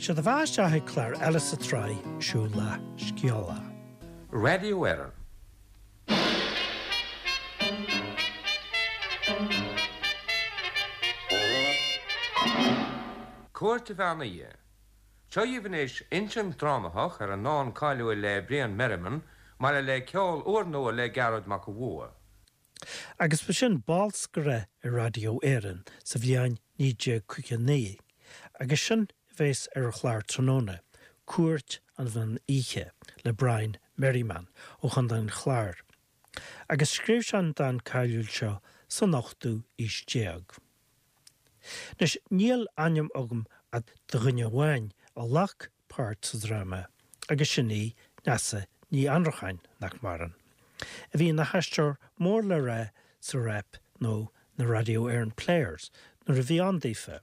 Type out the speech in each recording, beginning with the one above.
Sé do bheatha isteach ag clár eile sa tsraith Siúlach Scéalach. Radio Éireann. Cúirt an Mheán Oíche. Seo dhaoibh anois insint drámathach ar an ndán cáiliúil le Brian Merriman, maille le ceol úrnua le Gearóid Mac an Bhua. Agus ba sin bolscaire ar Raidió Éireann sa bhliain 1959, agus sin a bheas ar an chlár tráthnóna, Cúirt an Mheán Oíche le Brian Merriman ó Chontae an Chláir. Agus scríobh sé an dán cáiliúil seo san ochtú aois déag. Anois, níl ainm agam ach do dhuine amháin a ghlac páirt sa dráma agus sin í Neasa Ní Annracháin, nach maireann, a bhí ina haisteoir mór le rá sa Rep nó na Radio Éireann Players nuair a bhí ann daofa.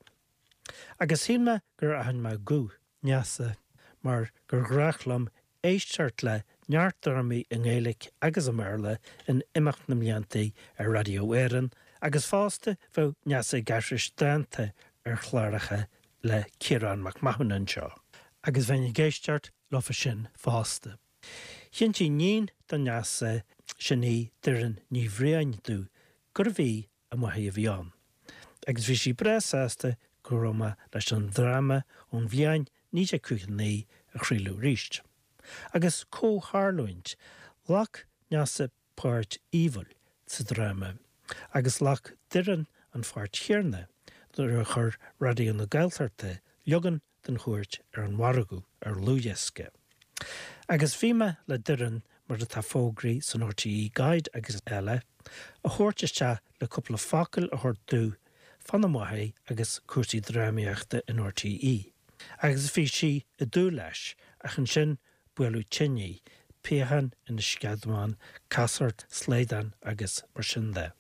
Agus shíl mé gur aithin mé guth Neasa mar gur ghnách liom éisteacht le neart drámaí i nGaeilge agus i mBéarla in imeacht na mblianta ar Raidió Éireann agus fosta bheadh Neasa ag aithris dánta ar chláracha le Ciarán Mac Mathúna anseo agus bheinn ag éisteacht leofa sin fosta. Chinntigh iníon do Neasa, sin í Doireann Ní Bhriain domh gurbh í a máthair a bhí ann agus bhí sí breá sásta go raibh mé leis an dráma ón bhliain 1959 a chraoladh arís. Agus comhtharlúint, ghlac Neasa páirt Aoibhil sa dráma agus ghlac Doireann an pháirt chéanna nuair a chuir Raidió na Gaeltachta leagan den Chúirt ar an mhargadh ar dhlúthdhiosca. Agus bhí mé le Doireann, mar atá fógraithe san RTÉ Guide agus eile, a thabhairt isteach le cúpla focal a thabhairt domh fána máthair agus cúrsaí drámaíochta in RTÉ. Agus bhí sí ag dúil leis, ach ansin buaileadh tinn í, piachán ina sceadamán, casacht, slaghdán agus mar sin de.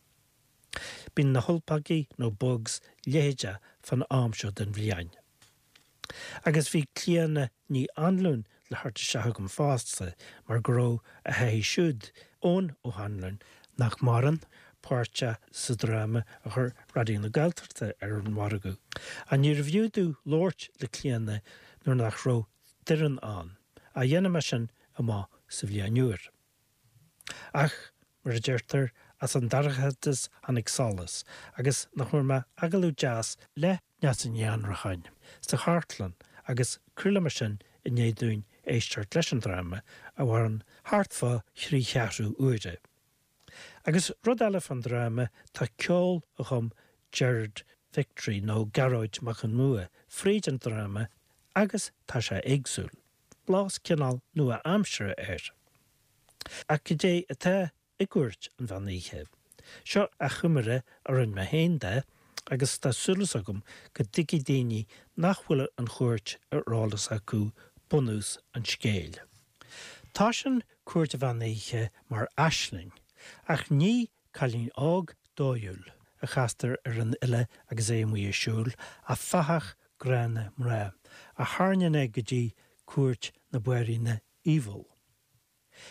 Bíonn na hulpagaí nó bugs leitheadach fán am seo den bhliain. Agus bhí Clíona Ní Anluain le thabhairt isteach agam fosta mar go raibh a hathair siúd, Eoin Ó hAnluain, nach maireann, páirteach sa dráma a chuir Raidió na Gaeltachta ar an mhargadh. Ach níorbh fhiú domh labhairt le Clíona nuair nach raibh Doireann ann. Ach dhéanfaidh mé sin amach sa bhliain úr. Ach, mar a deirtear, as an dorchadas tháinig solas, agus nach bhfuair mé agallamh deas le Neasa Ní Annracháin sa chartlann agus craolfaidh mé sin i ndiaidh dúinn éisteacht leis an dráma, a mhaireann thart fá thrí cheathrú uaire. Agus rud eile fán dráma, tá ceol a chum Gerard Victory, nó Gearóid Mac Con Bhua, fríd an dráma agus tá sé éagsúil. Blas cineál nua-aimseartha air. Ach cad é atá i gCúirt an Mheán Oíche? Seo achoimre a rinne mé féin de agus tá súil agam go dtuigfidh daoine nach bhfuil an chúirt ar eolas acu bunús an scéil. Toisíonn Cúirt an Mheán Oíche mar aisling, ach ní cailín óg dóighiúil a chastar ar an fhile agus é amuigh ag siúl, ach fathach gránna mná, a tharraingíonn é go dtí cúirt na banríona Aoibheall.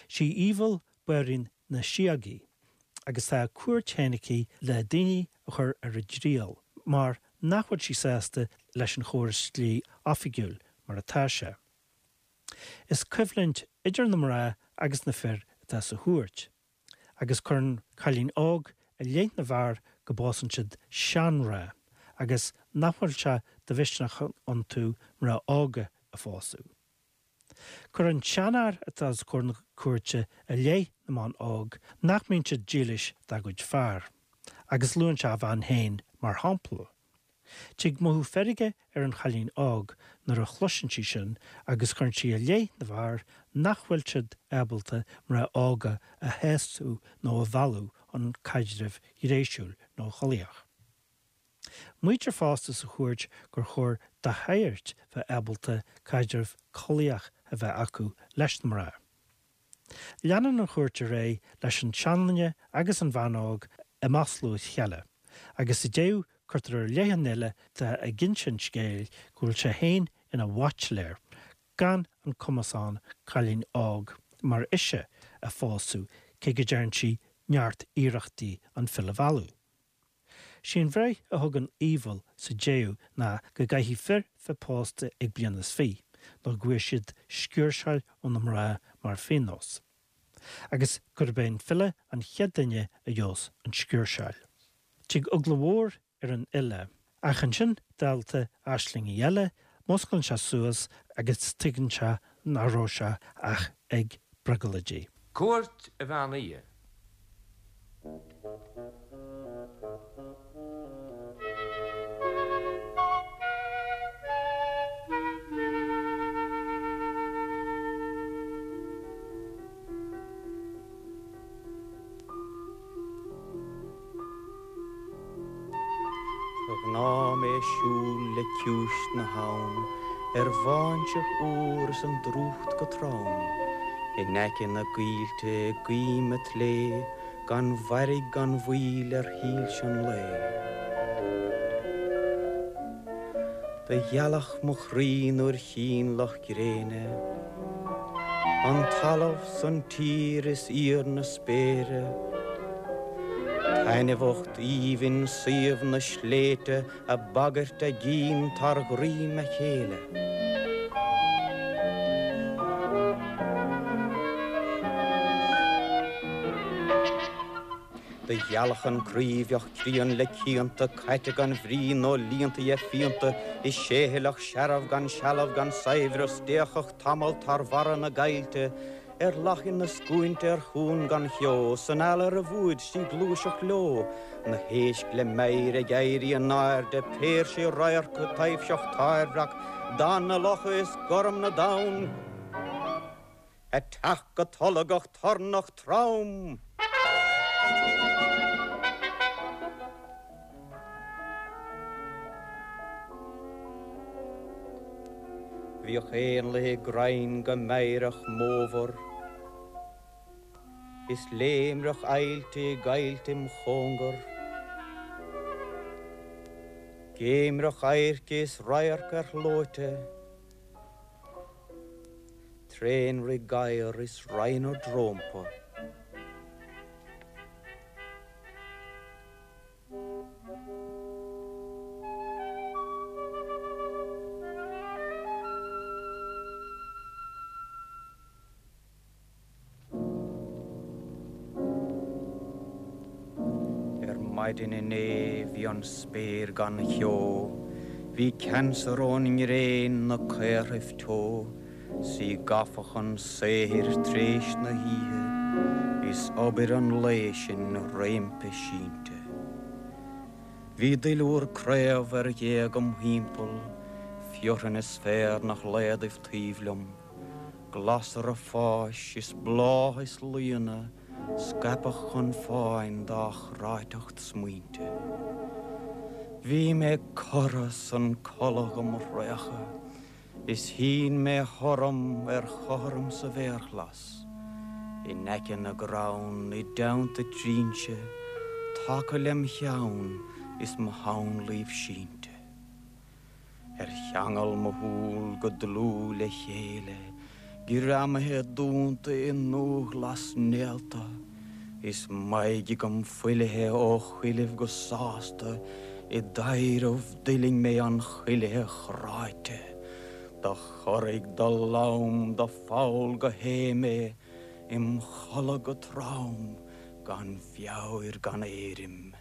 Sí Aoibheall banríon na síogaí, agus tá a cúirt féin aici le daoine a chur ar a dtriail, mar nach bhfuil sí sásta leis an chóras dlí oifigiúil mar atá sé. Is coimhlint idir na mná agus na fir atá sa chúirt, agus cuireann cailín óg i leith na bhfear go bpósann siad seanmhná agus nach bhfuil sé de mhisneach iontu mná óga a phósadh. Cuireann seanfhear atá os comhair na cúirte i leith na mban óg nach mbíonn siad dílis dá gcuid fear, agus luann sé a bhean féin mar shampla. Tig mothú feirge ar an chailín óg nuair a chloiseann sí sin agus cuireann sí i leith na bhfear nach bhfuil siad ábalta mná óga a shásamh nó a mhealladh chun caidrimh ghnéasúil nó chollaíoch. Maítear fosta sa chúirt gur chóir do shagairt bheith ábalta caidreamh collaíoch a bheith acu leis na mná. Leanann an chúirt ar aghaidh leis an seanduine agus an bhean óg ag maslú a chéile, agus sa deireadh cuirtear i leith an fhile atá ag inse an scéil go bhfuil sé féin ina bhaitsiléir, gan an cumas ann cailín óg mar ise a phósadh cé go dtearn sí neart iarrachtaí an file a mhealladh. Sí an bhreith a thugann Aoibheall sa deireadh ná go gcaithfidh fir bheith pósta ag bliain is fiche nó go bhfuair siad sciúrsáil ó na mná mar phionós. Agus gurb é an file an chéad duine a gheobhas an sciúrsáil. Tig eagla mhór ar an fhile. Ach ansin, dálta aislingí eile, músclaíonn sé suas agus tuigeann sé nach raibh sé ach ag brioglóidí. Cúirt an Mheán Oíche. De ghnáth mé ag siúl le ciumhais na habhann ar bháinseach úr is an drúcht go trom, in aice na gcoillte i gcoim an tslé gan mhairg gan mhoill ar shoilse an lae. Do ghealach mo chroí nuair chínn luch gréine, an talamh 's an tír is íor na spéire, taitneamhacht aoibhinn suíomh na sléibhte a' bagairt a gcinn tar dhroim a chéile. Do ghealach an croí bheadh críon le cianta, caite gan bhrí nó líonta dhe phianta, is séithealach searbh gan sealbh gan saibhreas, d'fhéachfadh tamall tar bharra na gcoillte, ar lachain na scuainte ar chuan gan cheo, san eala ar a bhfuaid 's í gluaiseacht leo, na héisc le meidhir ag éirí in airde, péirsigh radharc, taibhseach tairmhreac, dath na locha is gorm na dtonn. Ag teacht go tolgach tornach trom. Bhíodh éanlaithe i gcrainn go meidhreach mómhar, is léimreach aillte i gcoillte im chóngar, Géimreach adhairce is radharc ar shlóite. Tréanrith gadhar is raonadh rómpa. Ar maidin inné bhí an spéir gan cheo, bhí ceansair ón ngréin 'na caorthaibh teo, 's í gafa chun saothair t'réis na hoíche, is obair an lae sin roimpi sínte. Bhí duilliúr craobh ar ghéaga 'm thimpeall, fearthainn is féar 'na shlaodaibh taobh liom. Glasra fáis is bláth is laonna scaipeadh chun fáin dá chráiteacht smaointe. Bhí mé cortha 's an codladh dhom thraochadh is shín mé orm ar chothrom sa bhféarghlas in aice na gcrann i dteannta trinse taca lem cheann is mo shamhlaoibh sínte. Ar cheangal mo shúl go dlúth le chéile, greamaithe dúnta i ndúghlas néalta, is m'aghaidh agam fuilithe ó chuilibh go sásta i dtaibhreamh d'fhuiling mé an chuilithe chráite, do chorraigh, do lom, do pholl go hé mé im chodladh go trom gan mheabhair gan éirim.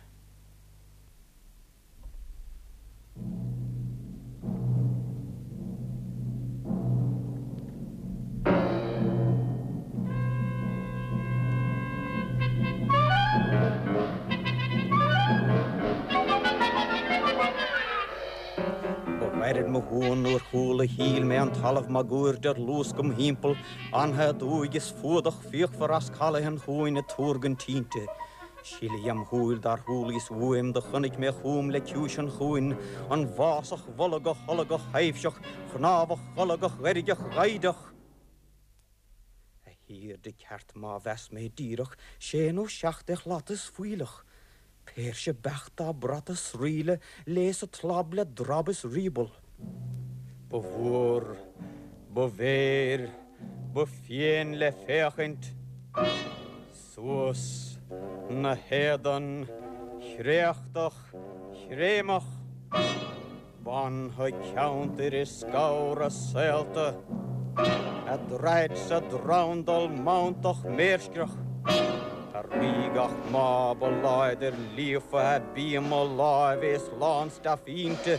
Ba ghairid mo shuan nuair chuala shíl mé an talamh máguaird ar luasc im thimpeall, anfa aduaidh is fuadach fíochmhar as calaith an chuain ag tuargaint tinte. Sileadh im shúil dár chualaíos uaim do chonaic mé chugam le ciumhais an chuain, an bhfásach bholgach tholgach thaibhseach chnámhach cholgach dheirgeach ghaibhdeach. A thiarda ceart má mheas mé díreach, sé nó seacht de shlata is fuílleach, péirse beacht dá bratadh sraoille léas a clab le drab is riaball. Ba mhór, ba mhéir, ba fiain le féachaint. Suas 'na héadan. chréachtach chréamach, Bainfidh ceantair is scamhra saolta A draid sa drandal mantach méirscreach, A rígeach maith ba láidir líofa A bíoma láimhe is lánstuif inti,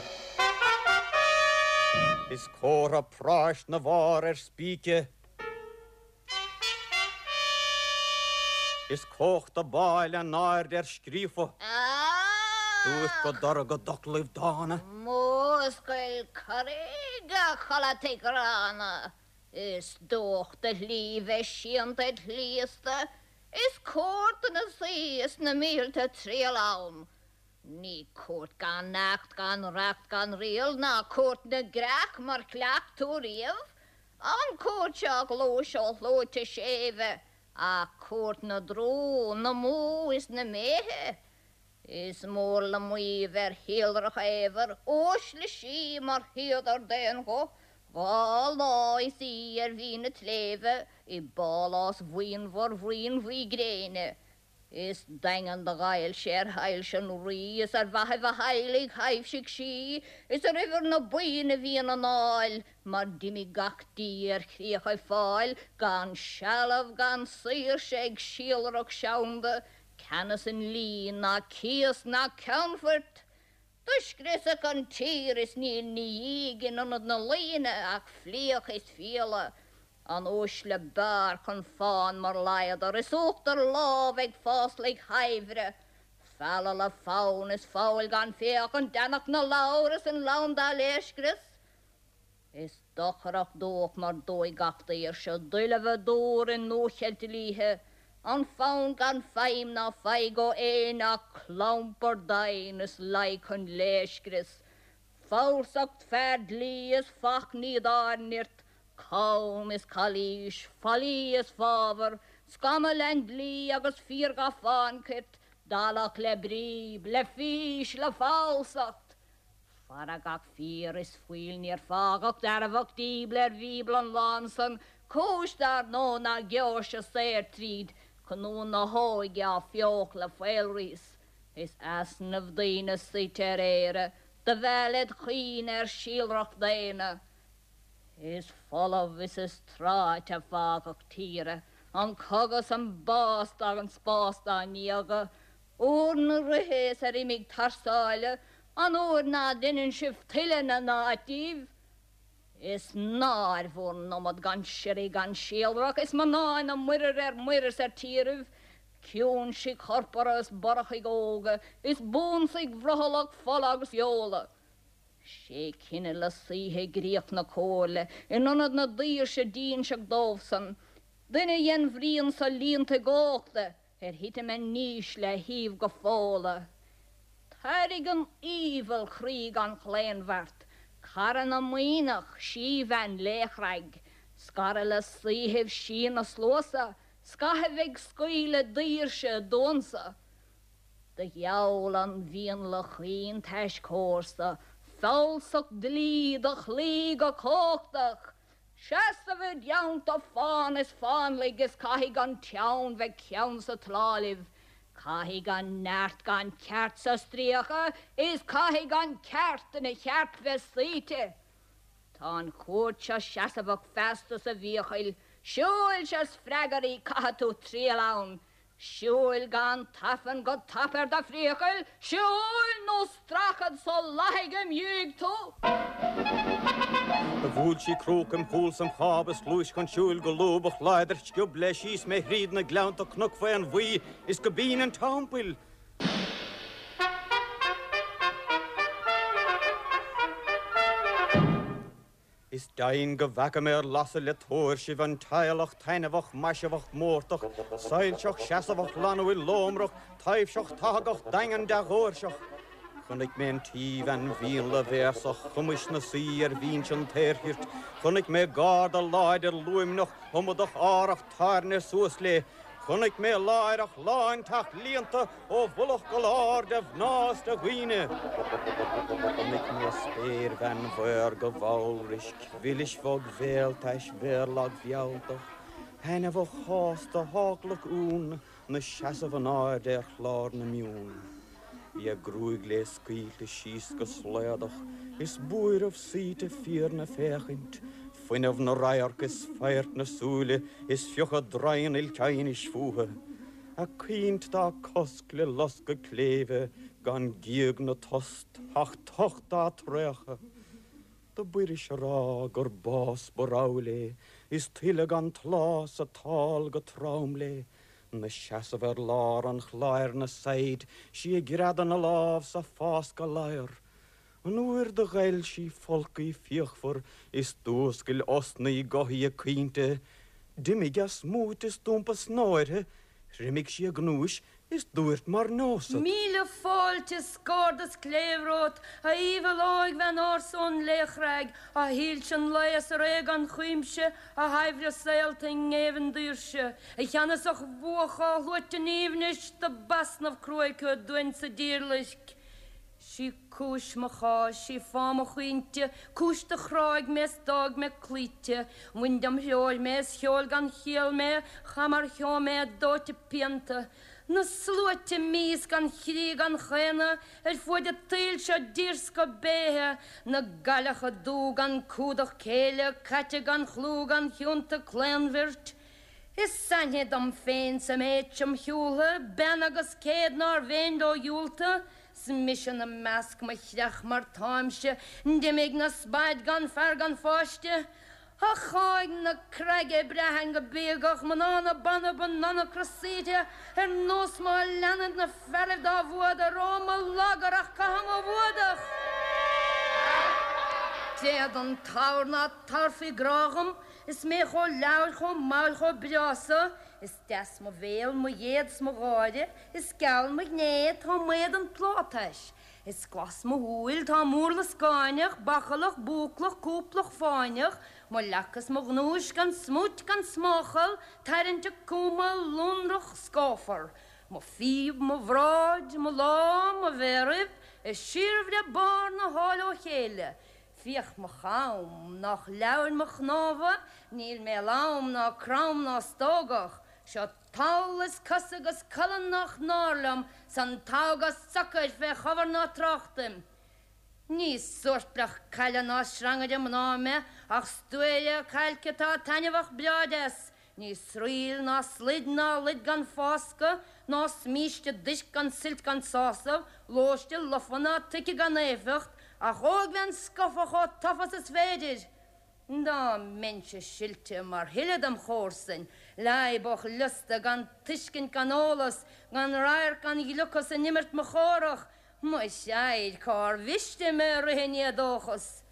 Is comhartha práis 'na bharr ar spíce. Is cumhachta báil in airde ar scríofa. Dúirt go dorcha d'fhoclaibh dána. Múscail corraigh, a chodlataigh ghránna, Is dubhach do shlí bheith séanta id shliosta, Is cúirt do na saoi is na mílte triall ann. Ní cúirt gan acht gan reacht gan riail ná cúirt na gcreach mar chleacht tú riamh, An chúirt seo a ghluais ó shluaite séimhe, ach cúirt na dtrú, na mbó is na méithe. Is mór le maíomh ar shíolrach éabhair, uaisle sí mar shuíodar d'aon ghuth, 'Ghá lá is í ar mhín a' tsléibhe i bpálás bhuíonmhar bhruíon bhuí gréine. Is daingean do ghoill sé ar shoilse an rí, is ar mhaithibh a theaghlaigh thaibhsigh sí, is ar uimhir na buíon a bhí ina ndáil, mar d'imigh gach dia ar chríochaibh Fáil, gan sealbh gan saoirse ag síolrach seanda, ceannas i ndlí ná cíos ná ceannphoirt. Do scriosadh an tír is níl 'na dhiaidh in ionad na laoine ach fliuch is fiaila, an uaisle b'fhearr chun fáin mar ladhar is uachtar lámh ag fáslaigh shaibhre, fealladh le fonn is foghail gan féachaint, deannach na ladhar is an lann dá léirscrios. Is dochrach dúch mar dóigh gach daoirse, doilbhe dúr i ndúcheilt dlíthe, an fonn gan feidhm ná faigh ó éinne ach clampar doimhin is laig chun léirscrios, falsacht fear dlí is fachnaí dár nirt, cam is calaois, faillí is fábhar, scamall an dlí agus fíorghafán cirt, dallach le bríb, le fís, le falsacht. Fara gach fíor is fuil níor fágadh dearfach díble ar Bhíobla an lán san, cúis dar ndóigh ná geoirse saor tríd, colún na hóige á fiuchadh le faolraos. Is easnamh daoine suite ar Éire, do mheall led chuimhne ar shíolrach daonna. Is folamh is is tráite a fágadh tíre, an cogadh 's an bás gan spás dá ndiaga, Uair na ríthe is ar imigh thar sáile, an uair ná deineann sibh tuilleadh na n-áit díbh. Is náir bhur n-iomad gan siorraí gan síolrach, is mná ina muirear ar muir is ar tíribh, ciúinsigh chorpartha is borachaigh óga, is buansaigh bhrothallach fola agus feola. Sé cine le saoithe i gcríoch na comhairle, in ionad na daoirse d'ínseadh dóibhsan, duine dhen bhruíon so líonta i gcóchta, Ar thitim a ndísle a thaobh go Fódhla. Tairg an aoibheall chroí gan chlaonbheart, cara na maoithneach, síbhean léachrag, scaradh le saoithibh sí na sluasa, scaitheamh ag scaoileadh daoirse i dtuansa. Do gheall an mhianla chaoin tais comharsa, falsacht dlí do chloí go cumhachtach, Seasamh i dteannta fán is fánlaigh is caithfidh an teann bheith ceann sa tslá libh, caithfidh an neart gan ceart sa stríoca is caithfidh an ceart ina cheart bheith suíte. Tá an chúirt seo seasamhach feasta sa bhfiachail, siúil-se 's freagair í caithfidh tú triall ann, Siúil gan tafann go tapa ar do phriacal, siúil nó stracfad sa lathaigh im dhiaidh tú! Do bhuail sí cróc im chúl 's im cháb is ghluais chun siúil go lúbach láidir sciob léi síos mé thríd na gleannta cnoc faon bhuí is go binn an teampaill. Is deimhin go bhfeaca mé ar lasadh le tóirsibh an teaghlach taitneamhach maiseamhach mórtach, soilseach seasamhach lanúil lómrach, taibhseach tathagach daingean dea-dhóirseach. Chonaic mé an tsíbhean mhíonla bhéasach chuimis 'na suí ar bhinse an tsaorchirt. Chonaic mé garda láidir luaimneach iomadach árach tairne suas léi. Chonaic mé láithreach lánteach líonta ó mhullach go lár de mhná is de dhaoine. Chonaic mé spéirbhean mhaorga mhallroisc, mhilis bhog bhéaltais mhéarlag mhealltach, thaitneamhach shásta sheaglach uain, 'na seasamh in airde ar chlár na mion. Bhí a gruaig léi scaoilte síos go slaodach, is buaireamh suaite fíor 'na féachaint, fuinneamh 'na radharc is faghairt 'na súile is fiuchadh draighean ilteimhnis fúthu. A caoint dá cosc le loscadh cléibhe gan gíog na tost ach tocht dá traochadh. Do b'fhuiris a rá gur bás ba rogha léi is tuile gan tláth 's a tál go trom léi. 'Na seasamh ar lár an chláir 'na saighid sí ag greadadh na lámh 's a fáscadh ladhar. An uair do ghoil sí folcaidh fíochmhar is d'fhuascail osnaí gothaí a caointe, d'imigh a smúit is d'iompaigh snáth uirthi, thriomaigh sí a gnúis is dúirt mar neosad. Míle fáilte is gairdeas cléibh romhat, a aoibheall óigbhean ársa ón Laochrág, a shoilse an lae is a ré gan chuimse, a shaibhre saolta i ngéibheann daoirse, a cheannasach bhuach á shluaite in aoibhneas, do b'easnamh cruaidh thú dúinn sa díorlaisc. 'Sí cúis mo cháis, sí fáth mo chaointe, cúis do chráigh mé is d'fhág mé cloíte. Bhain dem threoir mé is sheol gan chiall mé, chaith mar cheo mé dóite pianta. Na sluaite mias gan chroí gan chaonadh ar fuaid an tsaoil seo d'fhíorscoth béithe, na gcailleacha dubha gan cumhdach céille, caite gan chlú gan chionta claonbhirt. Is aithne dom féin sa méid seo 'm shiúltha, bean agus céad nár mhéin leo dhiúltadh, 'S mise 'na measc mo chreach mar táimse, d'imigh 'na spaid gan fear gan pháiste. Ach cháidh na creige braitheann go bíogach mná na banbh a n-anacra saoite ar nós má leanaid na fearaibh dá bhfuadar, ó mo lagar ach caithim mo bhfuadach! Tréad an t-abhar ná tabharfaí grá dhom, is mé chomh leabhail chomh mall chomh breá so, Is deas mo bhéal, mo ghéad 's mo gháire, Is geal mo ghné, tá m'éadan plátais. Is glas mo shúil, tá m'urlas gáinneach, Bachallach, búclach, cúplach, fáinneach, Mo leac is mo ghnúis gan smúit gan smáchal, Tarraingteach cumtha, lonrach, scáfar. Mo phíob, mo bhráid, mo lámh, mo mhéaraibh, Ag síorbhreith barr na háille ó chéile. Féach mo cham, nách leabhair mo chnámha, Níl mé lom ná crom ná stógach, Seo tall is cosa agus colainn nách náir liom, 'S an togha socair fé chobhar ná tráchtaim. Ní suairpleach caille ná srangaire mná mé, Ach stuaire cailce atá taitneamhach breá deas, Ní sraoill ná slaid ná luid gan fáscadh, ná smíste duisc gan suilt gan sásamh, lóiste lofa ná tuice gan éifeacht, ach óigbhean scofa chomh tofa 's is féidir. Dá mbeinnse silte mar thuilleadh dem chomharsain, leadhbach liosta gan tuiscint gan eolas, gan radharc gan ghliocas in imirt mo chórach, mo threabhair cár mhiste mé rith in éadóchas.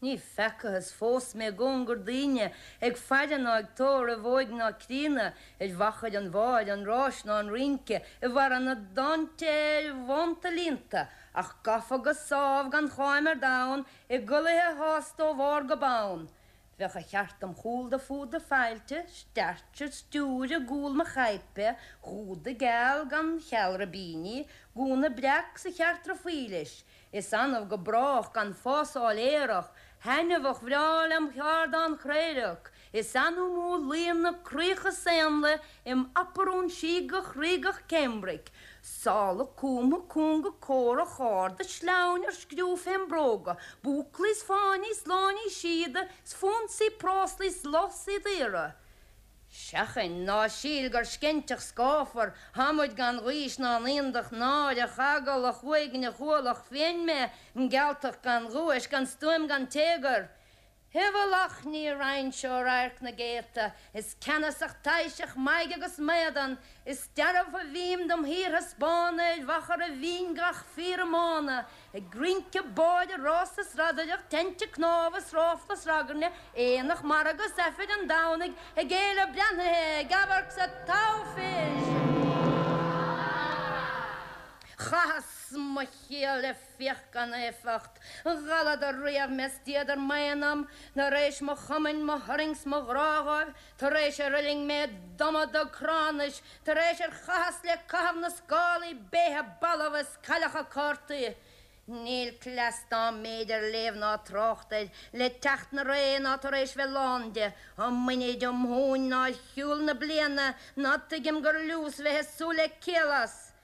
Ní feacathas fós mé i gcóngar daoine, ag faire ná ag tórramh óig ná críonna, ar mhachaire an bheáir, an ráis ná an rince, i bhfarradh na dtonnta ar bhonnta líonta, ach gafa go sámh gan cháim ar domhan, i gculaithe shásta ó bharr go bonn. Bheadh a cheart dom chúl do fuadar failte, scairte stiúir i gcúl mo chaidhpe, húda geal gan cheal ribíní, gúna breac 's a cheartra faoi leis. Is annamh go brách gan fásáil aerach, thaitneamhach bhreá lem cheárdán craorac, is annamh mó luíonn na craocha 's éanlaith im aparún síogach ríogach cambric, sála cumtha cúnga córach arda sleamhain ar scriú fém bróga, búclaí 's fáinní 's láinní síoda 's fonsaí práslaí 's lásaí daora. Seachain, ná síl gur sceinteach scáfar, thámuid gan ghaois ná naíondach náireach, eagalach, uaigneach, ualach fiain mé, gealtach gan ghuais, gan stuaim gan téagar. I bhfolach ní raghainnse ó radharc na gcéadta, is ceannasach taibhseach m'aghaidh agus m'éadan, is dearbh a bhím dom shíorthaispeánadh ar mhachaire bhinn gach fíor-iomána, Ag rince, báire, rása 's radaireacht, teinnte cnámha 's ráfla 's ragairne, aonach, margadh 's Aifreann Domhnaigh, ag éileamh breathnaithe, ag amharc 's ag toghadh fir. Chaitheas mo shaol le fiach gan éifeacht, dhalladar riamh mé 's d'fhíodar m'aon-am, tar éis mo chumainn, mo thurraing 's mo ghrá dhóibh, tar éis ar fhuiling mé d'iomadach cránais, Tar éis ar chaitheas le caitheamh na scálaí béithe balbha is cailleacha cártaí. Níl cleas dá mb'fhéidir léamh ná trácht air le teacht na ré ná tar éis bheith lán de, um muiníd um thúin ná ar shiúl na bliana ná tuigim gur liús bheith ag súil le ciall as.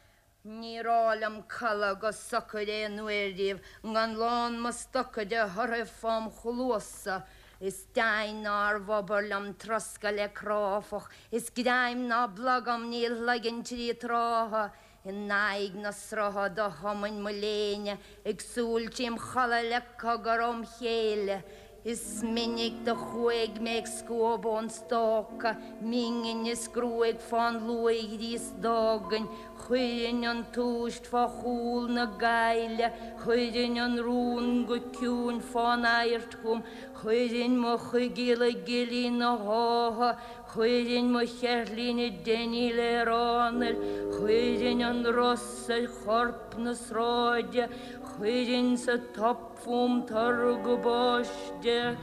Níor áil liom codladh go socair aon uair riamh gan lán mo stoca de thorthaibh fám chluasa. Is deimhin nár bh'obair liom troscadh le cráifeach, is greim ná blogam níl shloiginn tri trátha. In aghaidh na srutha do thumainn mo léine ag súil trím chodladh le cogar óm chéile. Is minic do chuaigh mé ag scuabadh an stoca, m'inghinn is gruaig fán luaithghríos d'fhágainn, chuirinn an tomhaist fá chúl na gaile, chuirinn an rún go ciúin fán adhairt chugam, chuirinn mo choigeal i gcillín na hátha, chuirinn mo cheirtlín i dteiníl ar anáil, chuirinn an ros ar chorp na sráide, chuirinn sa top fúm turgam báiste.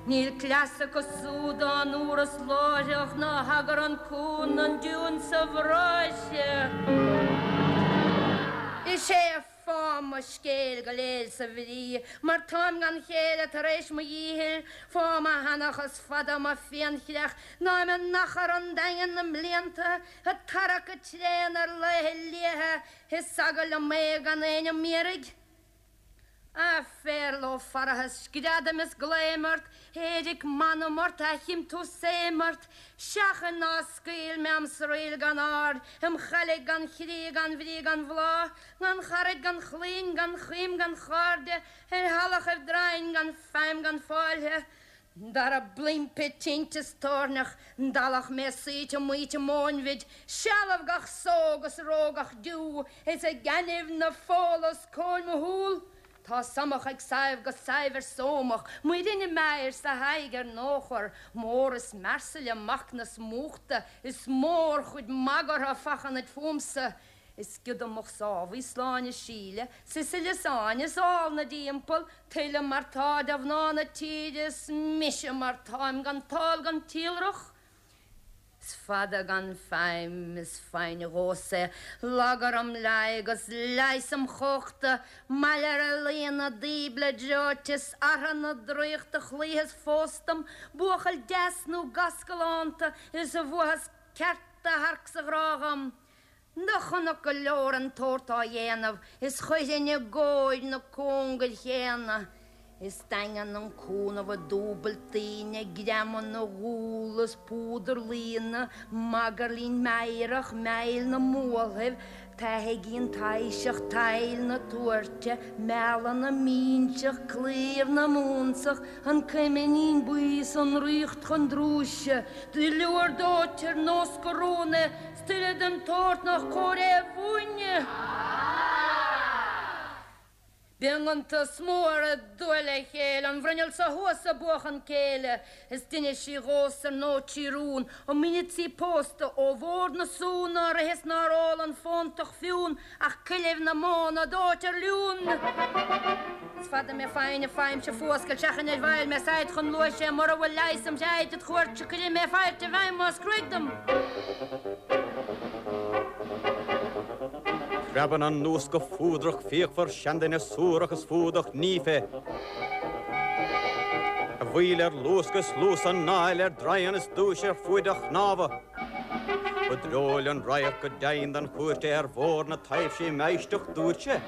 Níl cleas acu súd dá ndúras láithreach ná thagair an cú ná an diún sa bhráithre. Is é fáth mo scéil go léir sa bhrí mar táim gan chéile tar éis mo dhíchill, fáth mo sheanchas fada mo phianchreach ná im achar an daingean na mblianta ag tarrac go tréan ar laethe liatha is eagal liom é gan éinne m'iarraidh. A Phéarla ó Pharthas, screadaim is glaoim ort, éiric m'anam ort, aithchim tú 's éim ort, seachain ná scaoil mé am sraoill gan aird, im chailligh gan chrí gan bhrí gan bhláth, gan charaid gan chlainn gan chuim gan chairde, ar thalachaibh draighin gan feidhm gan fáilthe. Dara bpluimpe tinte is toirneach, ndalach mé saoite maoite móinbhid, sealbh gach só 'gus ró gach deú, is ag gainimh na fola os comhair mo shúl. Tá Somach ag Sadhbh 'gus Sadhbh ar Somach, Muireann i m'air 's a haghaidh ar nóchar, mór is mearsaile macnas múchta, is mórchuid magartha fachanaid fúmsa. Is giodamach Sábhaí Sláine Síle, Sisile 's Áine 's ál na dtimpeall, Tuilleadh mar tá de mhná na tíre 's mise mar táim gan tál gan tíolrach. Is fada gan feidhm is foighne dhomhsa, lagar im leigh 'gus leigheas im chumhachta, maille ar laonna díble dreoite 's artha na draíochta chloítheas fós dom, buachaill deas nó gas galánta is a bhfuathas ceart adharc sa ghrá dhom. Do chonac go leor an tsórt á dhéanamh is chuirfinn i gcóir na cóngair chéanna. Is daingean an cúnamh i dúbailt daoine, greamán na gcúl is púdar líne, magairlín meidhreach, meill na mbualthaibh, taithigín taibhseach, tadhall na tuairte, meala na mbinseach, claíomh na mbunsach, an cuiminín buí 's an ríocht chun drúise, duilliúr dóite ar nós gurúna, 's tuilleadh den tsórt nach cóir é a mhúineadh. Bíonn iontas mór ag dúil le chéile, an bhruinneall so thuas ag buachan céille, is d'inis sí dhomhsa ar ndóigh trí rún, an mbíonn sí pósta ó bhord na sú nár ith is nár ól an fóntach fiún ach coillibh na móna dóite ar liún. Is fada mé foighne faighimse fuascailt seachain ar bhfaill mé said chun luais é mura bhfuil leigheas im threaid id chuairt cuirfidh mé fáilte i bhfeidhm más cruaidh dom. Preabann an nós go fuadrach fíochmhar seanduine suarach is fuadach nífe a bhfuíoll ar luascadh is luas anáil ar draighean is dúis ar fuaid a chnámha. Ba dreoil an radharc go deimhin don chúirt é ar bhóthar na taibhsí im éisteacht dúirt sé.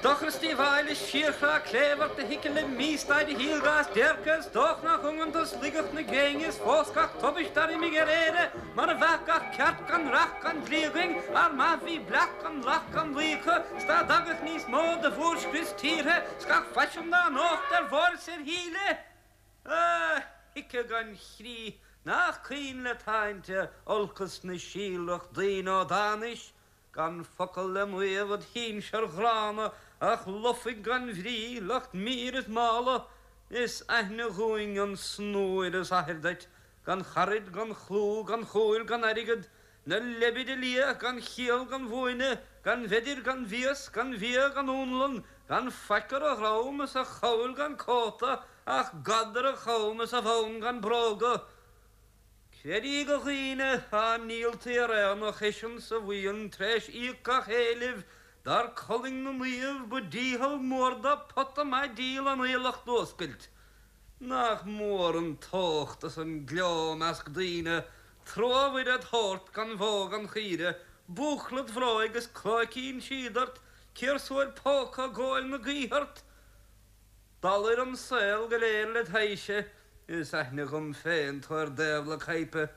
Dochar is díobháil is síorchrá cléibh ort a thiocfaidh le místaid a shaoil gach déirce is dóich nach iongantas laigeacht na gréine is fós gach tubaist dar imigh ar Éire mar a bheadh gach ceart gan reacht gan dlí againn ár maith bhí bleacht gan lacht gan luí acu 's dá dtagadh níos mó de mhórscrios tíortha 's gach faisean dá ndócht ar bhóir 's ar shíle a thiocfadh gan chrí nach caoin le táinte olcas na síolrach daoine ó d'anois Gan focal le maíomh id shinsir ghránna ach lufaigh gan bhrí, lucht mír is mála, Is aithne dhúinn an snúir is athair duit, gan charaid, gan chlú, gan chúil, gan airgead, Na leibide liath gan chiall gan mhúineadh, gan mheidir, gan mhias, gan bhia, gan únlann, Gan faic ar a dhrom is a chabhail gan cóta ach gad ar a chom is a bhonn gan bróga. Creid í a dhaoine, á ndíoltaí ar aonach eisean sa bhuíon t'réis íoc gach éilimh, dar colainn na naomh, ba dícheall mór dó pota maith díl an aoileach d'fhuascailt. Nach mór an tócht is an gleo 'measc daoine, trua Mhuire 'd thabhairt gan bhó gan chaoire. Búcla id bhróig is clóicín síoda ort, Ciarsúir póca ag góil na gaoithe ort. Dalair an saol go léir led thaidhse, Is aithne dhom féin tú ar dtaobh le caidhpe.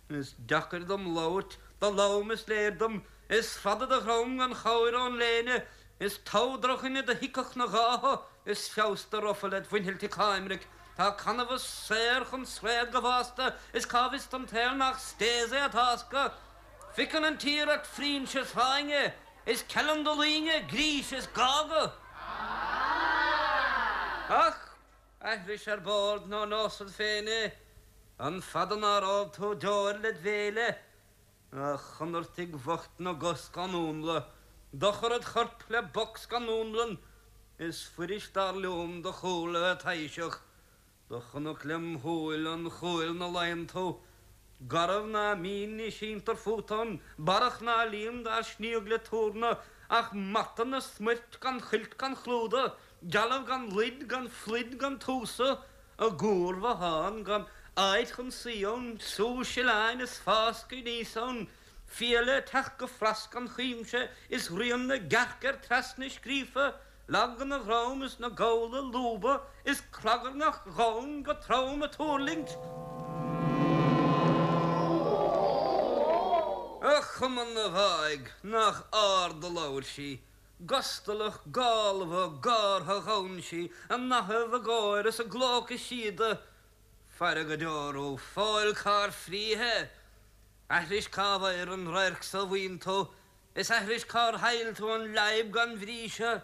Is deacair dom labhairt, do lom is léir dom, Is fada do dhrom gan chabhair ón léine, Is togha drochdhuine do thiocfadh 'na ghátha, Is feabhas do rufa led mhuinchillti coimric. Tá canbhás saor chun sraoth go bhfásta, Is cá bhfios don tsaol nach stéas é a tásca? Fiucann an tír ort frinse is fáinne, Is ceileann do loinge grís is gága. Ach aithris ar bord nó neosad féin é, An fada nár ól tú deoir led bhéile? A chonartaigh bhoicht na gcos gan únla, Dochar id chorp le bocs gan únlann, Is fuirist dar liom do chúl a bheith taidhseach. Do chonac lem shúil an chúil 'na luíonn tú, Garbh ná mín ní síntear fút ann, Barrach ná líon dár sníodh le túrna, Ach mata 'na smuirt gan chuilt gan chlúdach, Dealbh gan luid gan phluid gan túsa, I gcuarbhothán gan áit chun suí ann, Sú sileáin is fáscadh aníos ann, Fiaile ag teacht go fras gan chuimse, Is rian na gcearc air trasna scríofa, Lag ina dhroim is na gabhla ag lúbadh, Is clagarnach dhomhain go trom ag tuirlingt. A chuma na bhfáidh, nach ard a labhair sí, Gustalach, gálmhar, gártha ghabhann sí, A nathaibh, a gáire is a glóca síoda. Faire go deor thú, fóill cár frítheadh! Aithris cá bhfuair an radharc so mhaoin tú, Is aithris cár thaill tú an leadhb gan bhrí seo.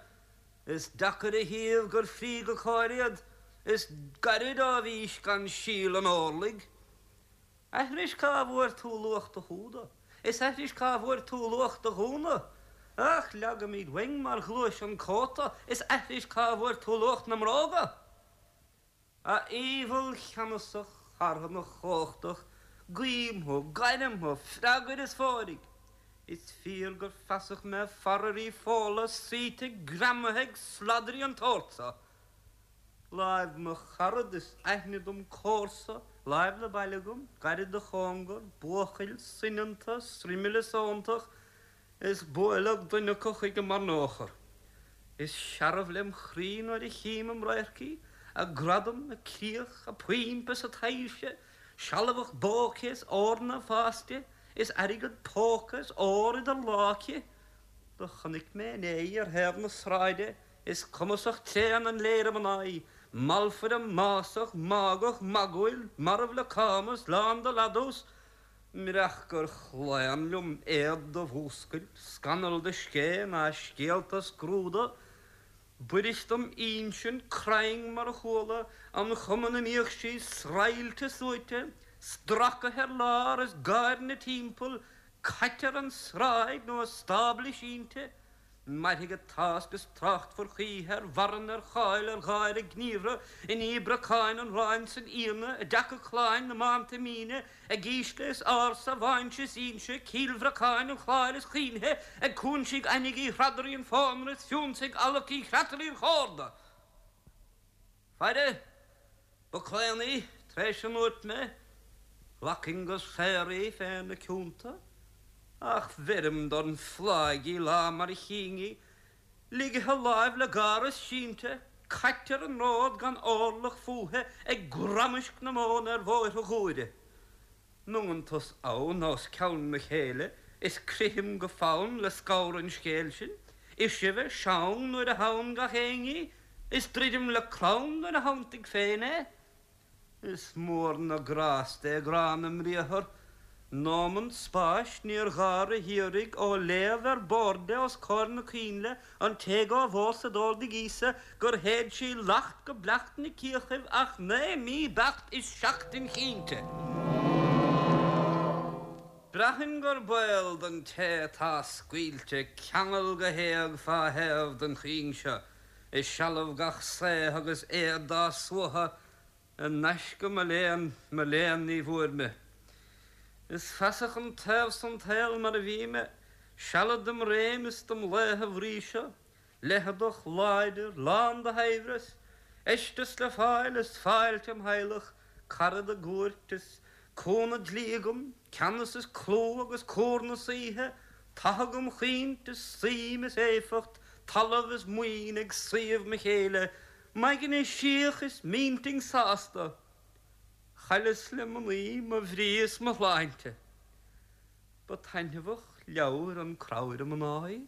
Is deacair a shuíomh gur frí go cóir iad, Is gairid ó bhís gan síol an órlaigh. Aithris cá bhfuair tú luach do húda, Is aithris cá bhfuair tú luach do ghúna. Ach leagaimid uainn mar ghluais an cóta, Is aithris cá bhfuair tú luach na mbróga. A aoibheall cheannasach, charthanach chumhachtach, guím thú, gairim thú, freagair is fóirigh. Is fíor gur feasach mé faraoir Fódhla suite greamaithe ag sladairí an tsóirt so. Láimh mo charad is aithne dom comharsa, láimh le baile agam, gairid do chóngar, buachaill soineanta, sroimile sóntach, Is buaileadh duine acu chuige mar nuachar. Is searbh lem chroí nuair a chím im radharc í, a gradam, a críoch, a poimp is a taibhse, sealbhach bó aici is eorna ag fás di, is airgead póca is ór idir lámha aici. Do chonaic mé inné í ar thaobh na sráide, is cumasach tréan an léire mná í, malfaire másach, mágach, magúil, marbh le cámas, lán de ladús, Murach gur chlaon liom éad do mhúscailt, scannal do scéith ná scéalta scrúdadh, b'fhuirist dom insint cruinn mar a chuala an chuma 'na mbíodh sí sraghailte suaite, stracaithe ar lár is gáir 'na timpeall, caite ar an sráid nó i stábla sínte. Mairfidh a tásc is tráchtfar choíche ar mharann, ar cháil, ar gháire gníomhartha, i ndiaidh brocáin an ráin san fhíona, i dtaca cláin na mbánta míne, ag ísle is ársa, bháinse is ínse, Cill Bhreacáin an Chláir is Chaointhe, ag cúinsígh Ainigh Uí Thradairí an phónair is fiúnsaigh Allac Uí Chreatalaigh an chórda. Faire, ba claon í, tar éis a ndúirt mé, ghlacfainn go saor í féna cionta, ach bheirim don phláigh í lá mar a chínn í, ligthe láimh le gáras sínte, caite ar an ród gan órlach fúithi ag gramaisc na móna ar bhóithre Ghuaire. M'iongantas ann os cionn mo chéille is crithim go fann le scamhar an scéil sin, is sibhe seang nuair a theann gach éinne í, is druidim le crann nuair a theanntaigh féin é. Is mór na grásta é grá na mbriathar, nómant spáis níor ghar a hiarraidh ó léamh ar bord é os comhair na coinnle, An té dhá mhó sa d'órdaigh Íosa gur shéid sí lacht go bleacht 'na cíochaibh ach naoi mí beacht is seachtain chinnte. Braitheann gur baol don té atá scaoilte ceangal go héag fá thaobh den chuing seo i sealbh gach saoth agus éad dá suaitheadh I ngaisce mo léan, mo léan ní bhfuair mé. Is feasach an taobh san tsaol mar a bhí mé, sealad dem réim is dem laethe bhríseadh, leitheadach, láidir, lán de shaibhreas, fheisteas le fáil is fáilte im theaghlach, carad i gcúirt is cúnamh dlí agam, ceannas is clú agus cúr na saoithe. Tathag um chaoint is suim is éifeacht, talamh is maoin ag suíomh mo chéille, m'aigne síoch is m'intinn sásta. Chailleas le mnaoi mo bhrí is mo shláinte. Ba taitneamhach leabhar an cramhaire mná í.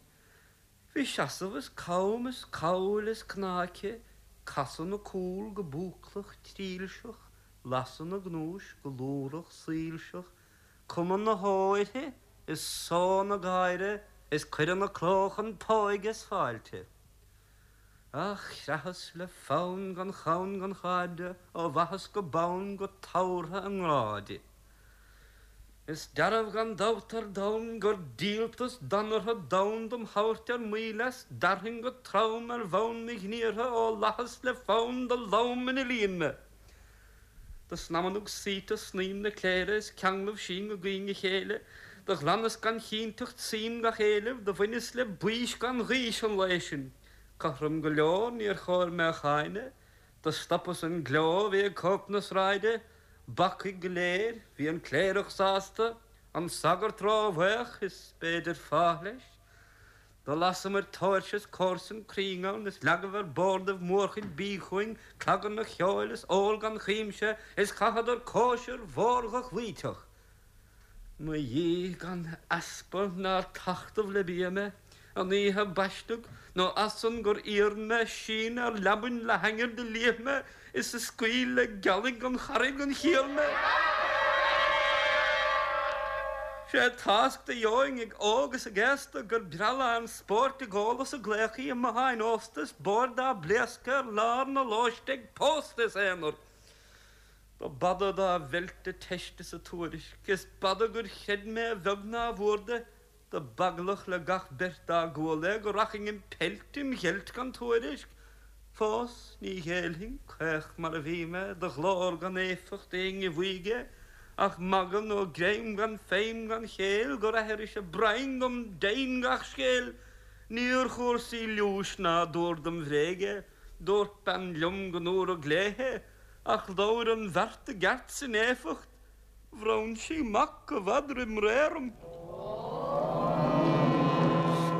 Bhí seasamh is cam is cabhail is cneá aici, casadh 'na cúl go búclach trilseach, lasadh 'na gnúis go lúthrach soilseach, cuma na hó uirthi is só 'na gáire is cuireadh 'na cló chun póige is fáilte. Ach chreathas le fonn gan chonn gan chairde ó bhaithis go bonn go tabhartha i ngrá di. Is dearbh gan dabht ar domhan gur díoltas danartha donn dom thabhairt ar maoil as, d'fhearfainn go trom ar bhonn mo ghníortha ó fhlaitheas le fonn do lom ina líon mé. Do snaidhmeannaigh saoite snaidhm na cléire is ceanglaibh sinn go gaoin a chéile, do ghlanas gan chinnteacht suim gach éileamh, do bhaineas le baois gan ghaois an lae sin. Cothrom go leor níor chóir mé a cháineadh, Do stopas an gleo a bhí ag cóip na sráide, bacaigh go léir, bhí an cléireach sásta, an sagart róbhaoch, is b'fhéidir fáth leis. Do lasamair tóirse is comharsan cruinn ann, is leagaibh ar bordaibh mórchuid bídh chugainn, cloganna cheoil is ól gan chuimse, is chaitheadar cóisir mhór dhochloíteach. Mo dhíth gan easpa nár tachtadh le bia mé, an oíche baisteadh, nó ansan gur iarr mé síneadh ar leabainn le hainnir do liath mé is a scaoil le gealaigh an charraig an chiall mé. Sé tásc do gheobhainn ag óg is ag aosta gur breá lán spóirt ag ól is ag glaoch í i mbotháin ósta is boird á bpléascadh ar lár na lóiste ag pósta is aonar. Do b'fhada dá mheilt a teist is a tuairisc, is b'fhada gur chreid mé a bheag ná a mhór de, do b'eaglach le gach beirt dá gcuala é go rachainn im peilt im gheilt gan tuairisc. Fós ní ghéillfinn, caoch mar a bhí mé, do ghlór gan éifeacht éinne bhaoigh é, ach magadh nó greim gan feidhm gan chéill gur aithris a broinn dom deimhin gach scéil. Níor chúrsaí liúis ná dúr dom bhréig é, dúirt bean liom go ndúradh léithe, Ach labhair an bheart i gceart 's in éifeacht, bhronn sí mac i bhfad roim ré orm.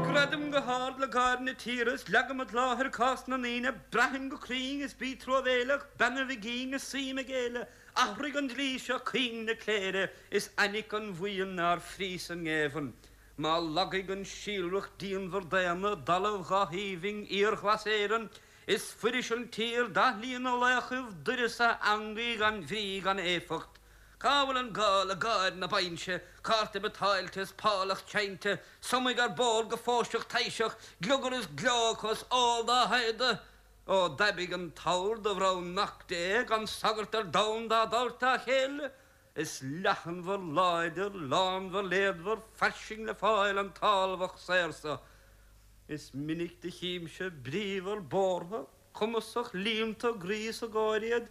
Screadaim go hard le gáir na tíre is leagaim id láthair cás na ndaoine, braithim go cruinn is bí truamhéileach, beannaibh a gcinn is suím ag éile, athraigh an dlí seo cuing na cléire is fainic an bhuíon nár fríos an ngéibheann. Má lagaigh an síolrach díonmhar daonna i dtalamh dhá-aoibhinn fhíorghlas Éireann, Is fuiris an tír d'athlíonadh laochaibh d'uireasa eangaí gan bhrí gan éifeacht. Cá bhfuil an gá le gáir na bainse, cárta biotáilte is pálach seinnte, sumaigh ar bord go fóirseach taibhseach, gliogar is gleo acu is ól dá shaighdeadh? Ó d'aibigh an t-ord do bhronn Mac Dé gan sagart ar domhan dá dtabhairt dá chéile, is leathanmhar láidir, lánmhar léadmhar, fairsing le fáil an tálmhach saor so. Is minic do chímse bríomhar bórtha, cumasach, líonta a gcroí is a gcomhair iad,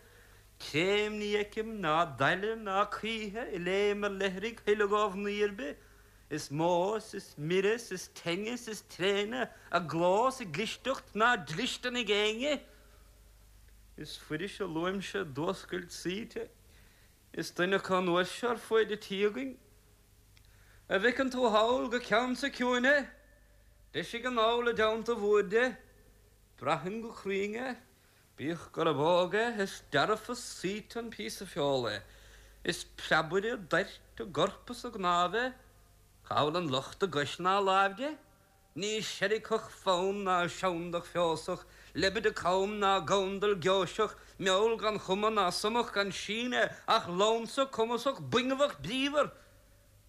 créim ní fheicim ná daille ná caoithe i léim ar leithrigh thuilleadh ó mhnaoi ar bith. Is mó 's is mire 's is teinne 's is tréine a gcló 's a gclisteacht ná dlistean ag éinne. Is fuiris a luaimse d'fhuascailt saoite, is duine acu an uair seo ar fuaid an tí againn. A bhfeiceann tú thall go ceann sa ciúin é? Deisigh anall i dteannta bhoird é. Braithim go cruinn é, bíodh gurab óg é, is dearfa saoite an píosa feola é. Is preabaire doirt i gcorp is i gcnámh é. Cá bhfuil an locht i gcois ná láimh de? Ní seirgfeadh fonn ná seandach feosach, leibide cam ná gandal geoiseach, meall gan chuma ná sumach gan síneadh, ach lansa cumasach buingeamhach bríomhar.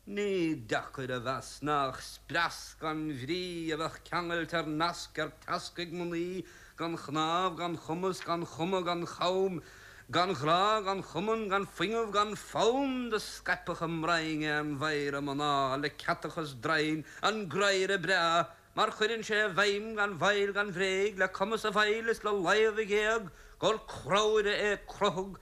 Ní deacair a mheas nach spreas gan bhrí a bheadh ceangailte ar nasc ar teasc ag mnaoi gan chnámh, gan chumas, gan chuma, gan cham, gan ghrá, gan chumann, gan fuinneamh, gan fonn, do scaipfeadh a mbroinn é an mhéara mná le ceatachas draighin, an graidhre breá, mar chuireann sé i bhfeidhm gan mhoill gan bhréig, le cumas a bhfeighil is le láimh a ghéag, gur cramhaire é crothadh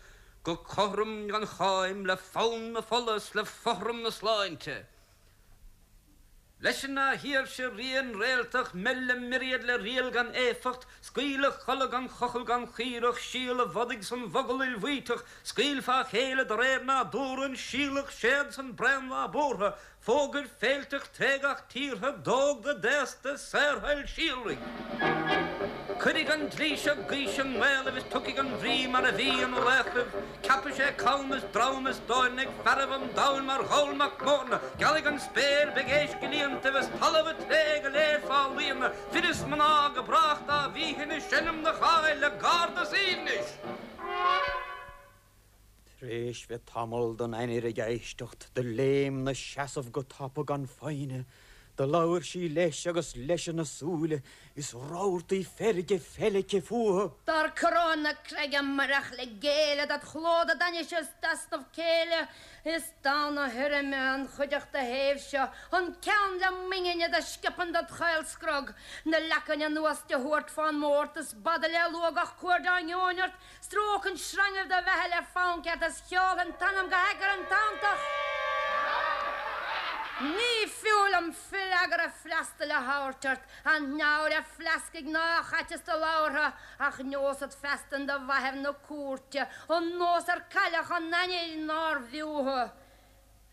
go cothrom gan cháim, le fonn na fola 's le fothram na sláinte. Leis an shaoirse rian réaltach, meil a myriad le riail gan éifeacht, scaoil a chodladh gan chochall gan chaoireach, síol a bhodaigh san mhogall ilmhaíteach, scaoil fá chéile de réir nádúrtha an síolach séad san braon lá buartha, Fógair féilteach tré gach tíortha, d'óg do d'aosta, saorthoil síolraigh. Cuirfidh an dlí seo gaois i nGaelaibh is tiocfaidh an bhrí mar a bhí ina laochraibh. Ceapfaidh sé cam is dream is dorn ag fearaibh an domhain mar Gholl Mac Mórna. Gealfaidh an spéir, beidh éisc i líontaibh is talamh a' tré go léir fá líonadh, fir is mná go brách dá bhíthin ag seinm do cháil le gárd is aoibhnis. T'réis bheith tamall don ainnir ag éisteacht, do léim 'na seasamh go tapa gan foighne. Do labhair sí leis agus leis ina súile, is rabhartaí feirge feilbhithe fúthu. Dar coróin na creige murach le géilleadh dod chló dod ainnise is d'easnamh céille, is donn a thirime an chuideachta shéimh seo, an ceann le m'ingne do sciopann dod chaol-scrog, na leacain anuas de thuairt fán mbord is b'fhada le lua gach cuair dá ngeobhainn ort, Stróicfinn sreangaibh do bheatha le fonn ceart is sheolfainn t'anam go hAigear tantach. Ní fiú liom freagra freastail a thabhairt ort, an neamhaire fleascaigh ná chaiteas do labhartha, ach neosad feasta in do mhaitheamh na cúirte an nós ar cailleadh an ainnir nár bhfiú thu.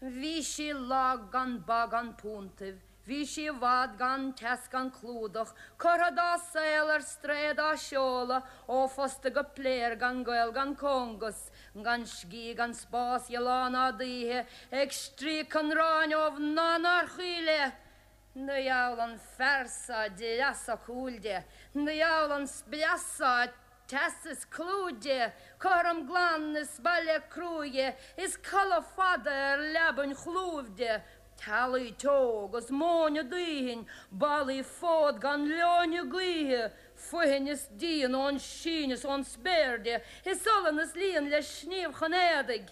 Bhí sí lag gan ba gan puntaibh, bhí sí i bhfad gan teas gan clúdach, curtha dá saol ar strae dá seoladh ó phosta go pléar gan gaol gan cóngas, gan scíth gan spás dhe lá ná d'oíche, ag stríocadh an aráin ó mhná nár chuí léi. Do gheall an fear so dreasa cúil di, do gheall an spreas so teas is clú di, cothrom glan is baile cruaidhe is codladh fada ar leabainn chlúimh di, teallaigh teo agus móin aduain, ballaí fód gan leoithne gaoithe, foithin is díon ón sín is ón spéir di, is olann is líon le sníomh chun éadaigh.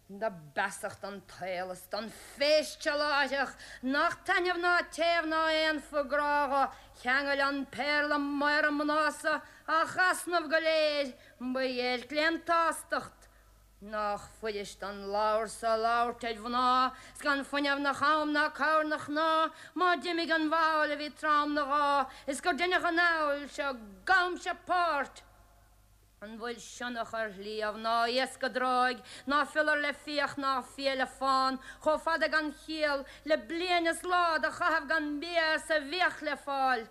Do b'fheasach don tsaol is don phéist seo láithreach nach taitneamh ná téamh ná aon phuth grá dho cheangail an péarla maora mná so ach easnamh go léir, ba dhéirc lén tsástacht. Nách fuirist don ladhar so labhairt ar mhná 's gan fuinneamh 'na cham ná cabhair 'na chná má d'imigh an bhall a bhí trom 'na ghá is gur deineadh an fheall seo gabhaimse páirt. An bhfuil sionnach ar shliabh ná iasc i dtráigh, ná fiolar le fiach ná fia le fán, chomh fada gan chiall le bliain is lá do chaitheamh gan bia is a bhfiach le fáil?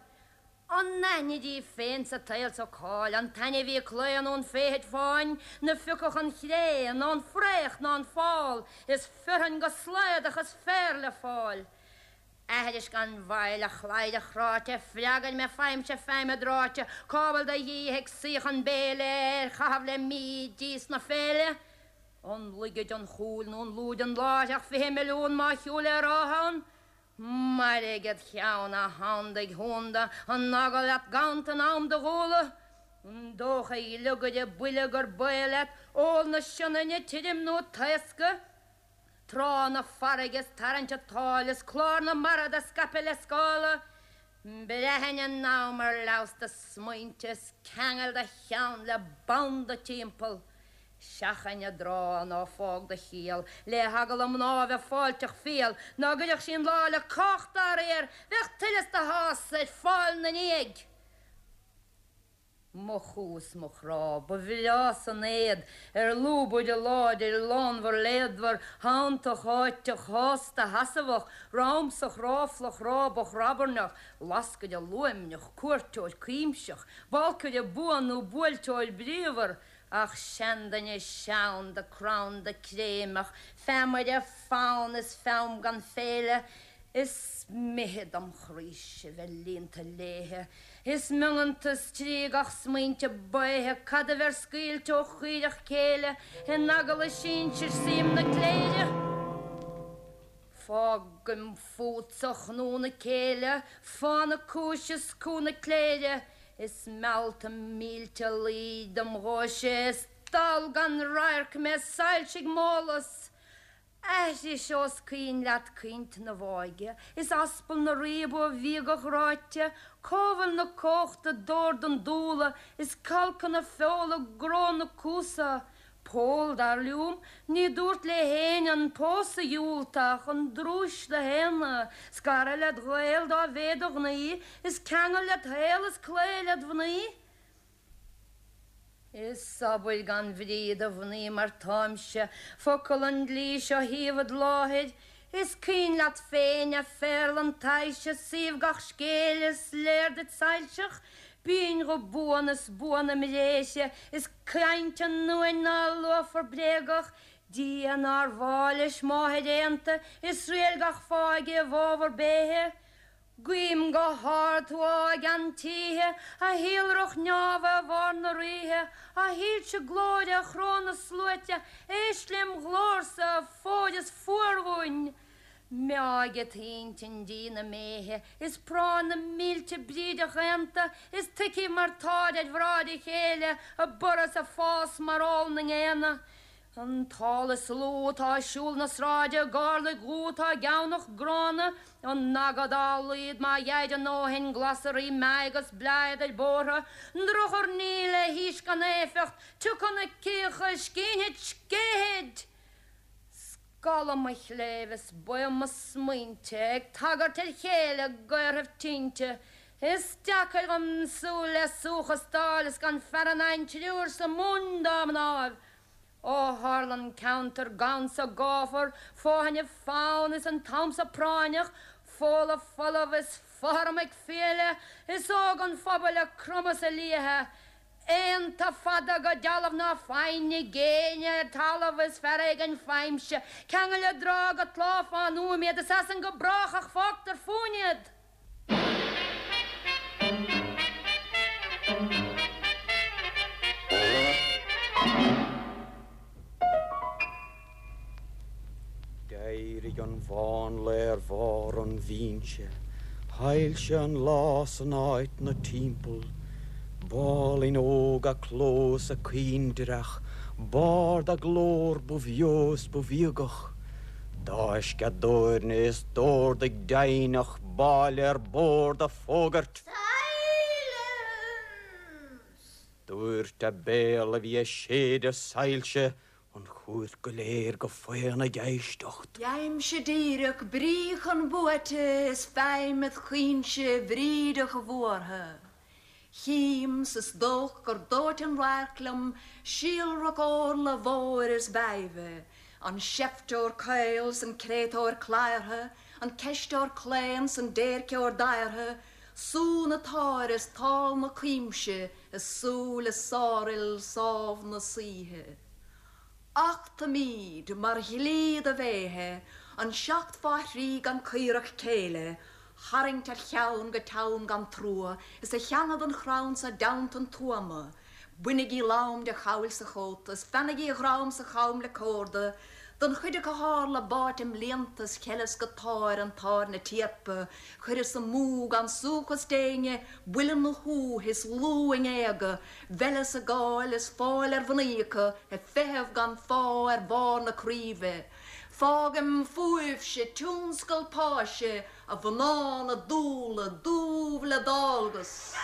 An aithnid í féin sa tsaol so cá'il an t-ainmhí claon ón bhféithid fáin 'na phiocfadh an chré ná an fraoch ná an fál is fearthainn go slaodach is féar le fáil? Aithris gan mhoill, a chladhaire chráite, freagair mé, faighimse feidhm i dtráite, cá bhfuil do dhíth ag suí chun béile ar chaitheamh le mí d'íos na féile? An laige den chúil nó an lúide an láithreach 20 milliún má shiúil ar áth ann? Mairg id cheann, a shandaigh shúnda, an eagal leat ganntan in am do dhúla? An dócha, a ghliogaire buile, gur baol leat ól na Sionainne tirim nó taoscadh? Trá na farraige is tarraingt a tsáil is clár na mara do scaipeadh le scála. Breathain in am ar leamhas do smaointe is ceangail do cheann le banda timpeall. Seachain a dtrá ná fág do chiall le heagal a mná bheith fáilteach fial ná gcuirfeadh sí an lá le cách dá réir bheadh tuilleas do shása ar fáil 'na ndiaidh. Mo chú is mo chrá, ba bhreá san éad ar lúbaire láidir lánmhar léadmhar shantach sháiteach shásta sheasmhach ramsach ráflach rábach rabairneach lascaire luaimneach cuairteoir cuimseach balcaire buan nó buailteoir bríomhar ach seanduine seanda cranda créimeach feamaire fann is fonn gan féile Is mithid dom chroíse bheith líonta léithe, Is miongantas trí gach smaointe baotha Cad a bheir scaoilte ó chaoireach céille In eagal a sinsir suím na cléire? Fágaim fútsa a chnú na céille, Fána cúise is cú na cléire, Is meallta mílte luí dom ghuaise, Is dall gan radharc mé soilsigh m'eolas. Aithris ós caoin leat caoint na bhfáidhe, is aspal na riabha bhíogach ráite, cá bhfuil na comhachta dord an dúla, is calcadh na feola gnó na cuasa? Pól, dar liom, ní dúrt le héinne an pósadh a dhiúltach, an drúis do shéanadh, scaradh led ghaol dá mhéad do ghnaoi, is ceangal led shaol is cloí led mhnaoi. Is sobair gan bhrí do mhnaoi mar táimse, focal an dlí seo thaobh id láthair, is cuimhin leat féin, a phéarla an tsaghais, suíomh gach scéil is léir duit soilseach, Binn go buan is buan im réise, is caint an uain ná luafar bréagach, Dia nár mhaith leis máthair aonta, is riail gach fáidh i bhfabhar béithe. Guím go hard thú a gceann títhe, a shíolrach neamha i bharr na ríthe, a shoilse glóire a chró na sluaite, éist lem ghlórsa, fóir is fuar dhúinn. Meáigh a t-intinn dí na méithe, is práinn na mílte brídeach aonta, is tuigfidh mar táid ar bhráid a chéile, ag borradh 's ag fás mar ál na ngéanna. An t-ál is lú atá ag siúl na sráide, i gcorrlaigh dhubha atá geamhnach gránna, an aga dá laghad má gheibhid a ndóthain glasraí meadhg is bladhad ar bóthra, an drochurnaí le haois gan éifeacht, tiocfaidh na cíocha, scínfid, scéithfid! Scalladh mo chléibh is baoth mo smaointe ag tagairt ar chéile i gcaorthaibh tinte. Is deacair dhom súil le suachas d'fháil is gan fearann againn triúr sa Mumhain dá mnáibh. Ó tharla an ceantar gann sa gáfar, fóthainne fann is an t-am so práinneach, Fódla folamh is fothram ag fiaile, is óg an phobail ag cromadh 's ag liathadh. Aonta fada go dealbh ná foighne ag éinne ar talamh is fear éigin faighimse, ceangal i dtráth go tláth fán uaim iad is as san go brách ach fágtar fúinn iad. D'éirigh an mhánla ar bharr an bhinse, shoilsigh an lá san áit 'na timpeall. B'álainn óg a cló is a caoindreach, b'ard a glór ba bheo is ba bhíogach. D'fháisc a doirne is d'ordaigh deimhneach báille ar bord a fógairt. Silence! Dúirt a béal a bhí ag séideadh soilse an chúirt go léir go faon ag éisteacht. Gheibhimse díreach brí chun buaite is feidhm id chaoinse bhrídeach bhuartha. Chím 's is dóich gur dóite an radharc liom síolrach órla mhóir is mheidhbhe, an seifteoir caol 's an créatúr cladhartha, an ceisteoir claon 's an déirceoir daortha, sú na táire is tál na cuimse i súile sárfhil sámh na saoithe. Achtaimíd, mar dhlí do bhéithe, an seacht fá thrí gan caorach céille tharraingt ar cheann go teann gan trua is a theannadh don chrann so i dteannta an tuama. Bainigí lam de chabhail 's a chóta is feannaigí a dhrom 's a cham le córda don chuid acu tharla báite i mblianta is cheileas go táir an táirne tíorpa chuireas amú gan suachas d'éinne buille 'na shúth is lú a ngéaga mheileas a gcáil is fáil ar mhnaoi acu ag feitheamh gan fáth ar bharr na craoibhe. Fágaim fúibhse tionscal páise A mhná na dúla dúbh le dálgas.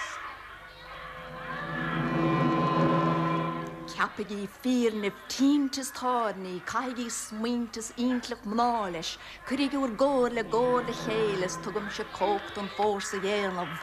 Ceapaigí fírnimh, tinte is táirní, caithigí smaointe is intleacht mná leis, cuirigí bhur gcomhairle i gcomhar le chéile is tugaimse cumhacht an fórsa dhéanamh.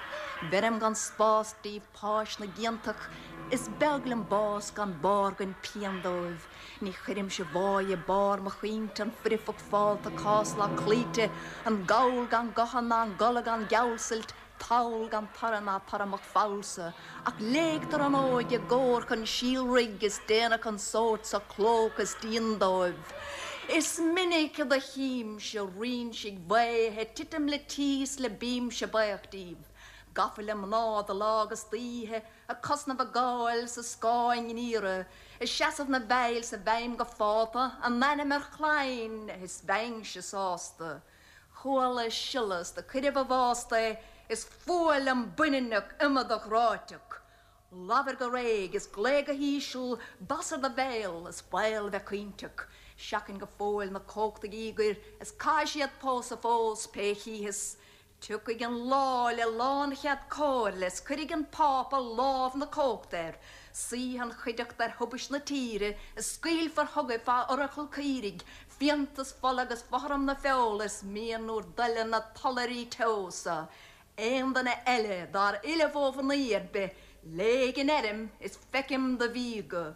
Bheirim gan spás díbh páis na gciontach, is beag liom bás gan bárgain pian dóibh. Ní chuirimse bháidh i barr mo chaointe an foirfeacht fálta cáslach cloíte, an gall gan gotha ná an gola gan geallsult, tall gan toradh ná toradh mo phollsa, ach léigtear an óige i gcomhar chun síolraigh is déanadh an sórt so clóca is díon dóibh. Is minic do chímse rinsigh bhaotha ag titim le tíos le bímse baoch díobh, gafa le mná de lá agus d'oíche, Ag cosnamh a gcáil 's a scáth a ngiorra, Ag seasamh 'na bhfeighil 's a bhfeidhm go fálta, A n-ainm ar chlainn is bheinnse sásta. Chuala siolla 's do cuireadh i bhfásta é, Is fuath liom baininneach iomadach ráiteach. Labhair go réidh is glaoigh go híseal, Bas ar do bhéal is baol bheith caointeach. Seachain go fóill na cumhachtaigh íogair, Is caithfidh siad pósadh fós pé chítheas. Tiocfaidh an lá le lánchead comhairle is cuirfidh an Pápa lámh na cumhachta air, suífidh an chuideachta ar thubaist na tíre is scaoilfear chugaibh fá oracal caoirigh, fíonta is fola agus fothram na feola is mian úr dtoile na tollairí teo so. Aon duine eile dár fhilleadh ó mhnaoi ar bith, léig an fheirm is feicim do mhíogadh.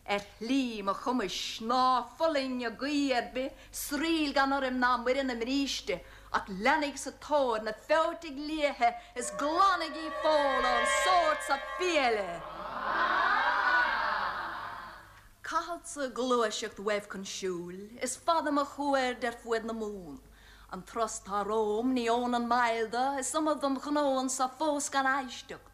Ar shlí mo chumais, ná fulaing i gcaoi ar bith, sraoill gan urraim ná Muire na mbríste, ach leanaig sa tóir na feoitigh liatha is glanaigí feoil ón sórt so fiaile! Caithfeadsa gluaiseacht uaibh chun siúil, is fada mo chuaird ar fuaid na Mumhan. An turas tá romham ní fhónann moill do, is iomad dom ghnó anso fós gan éisteacht.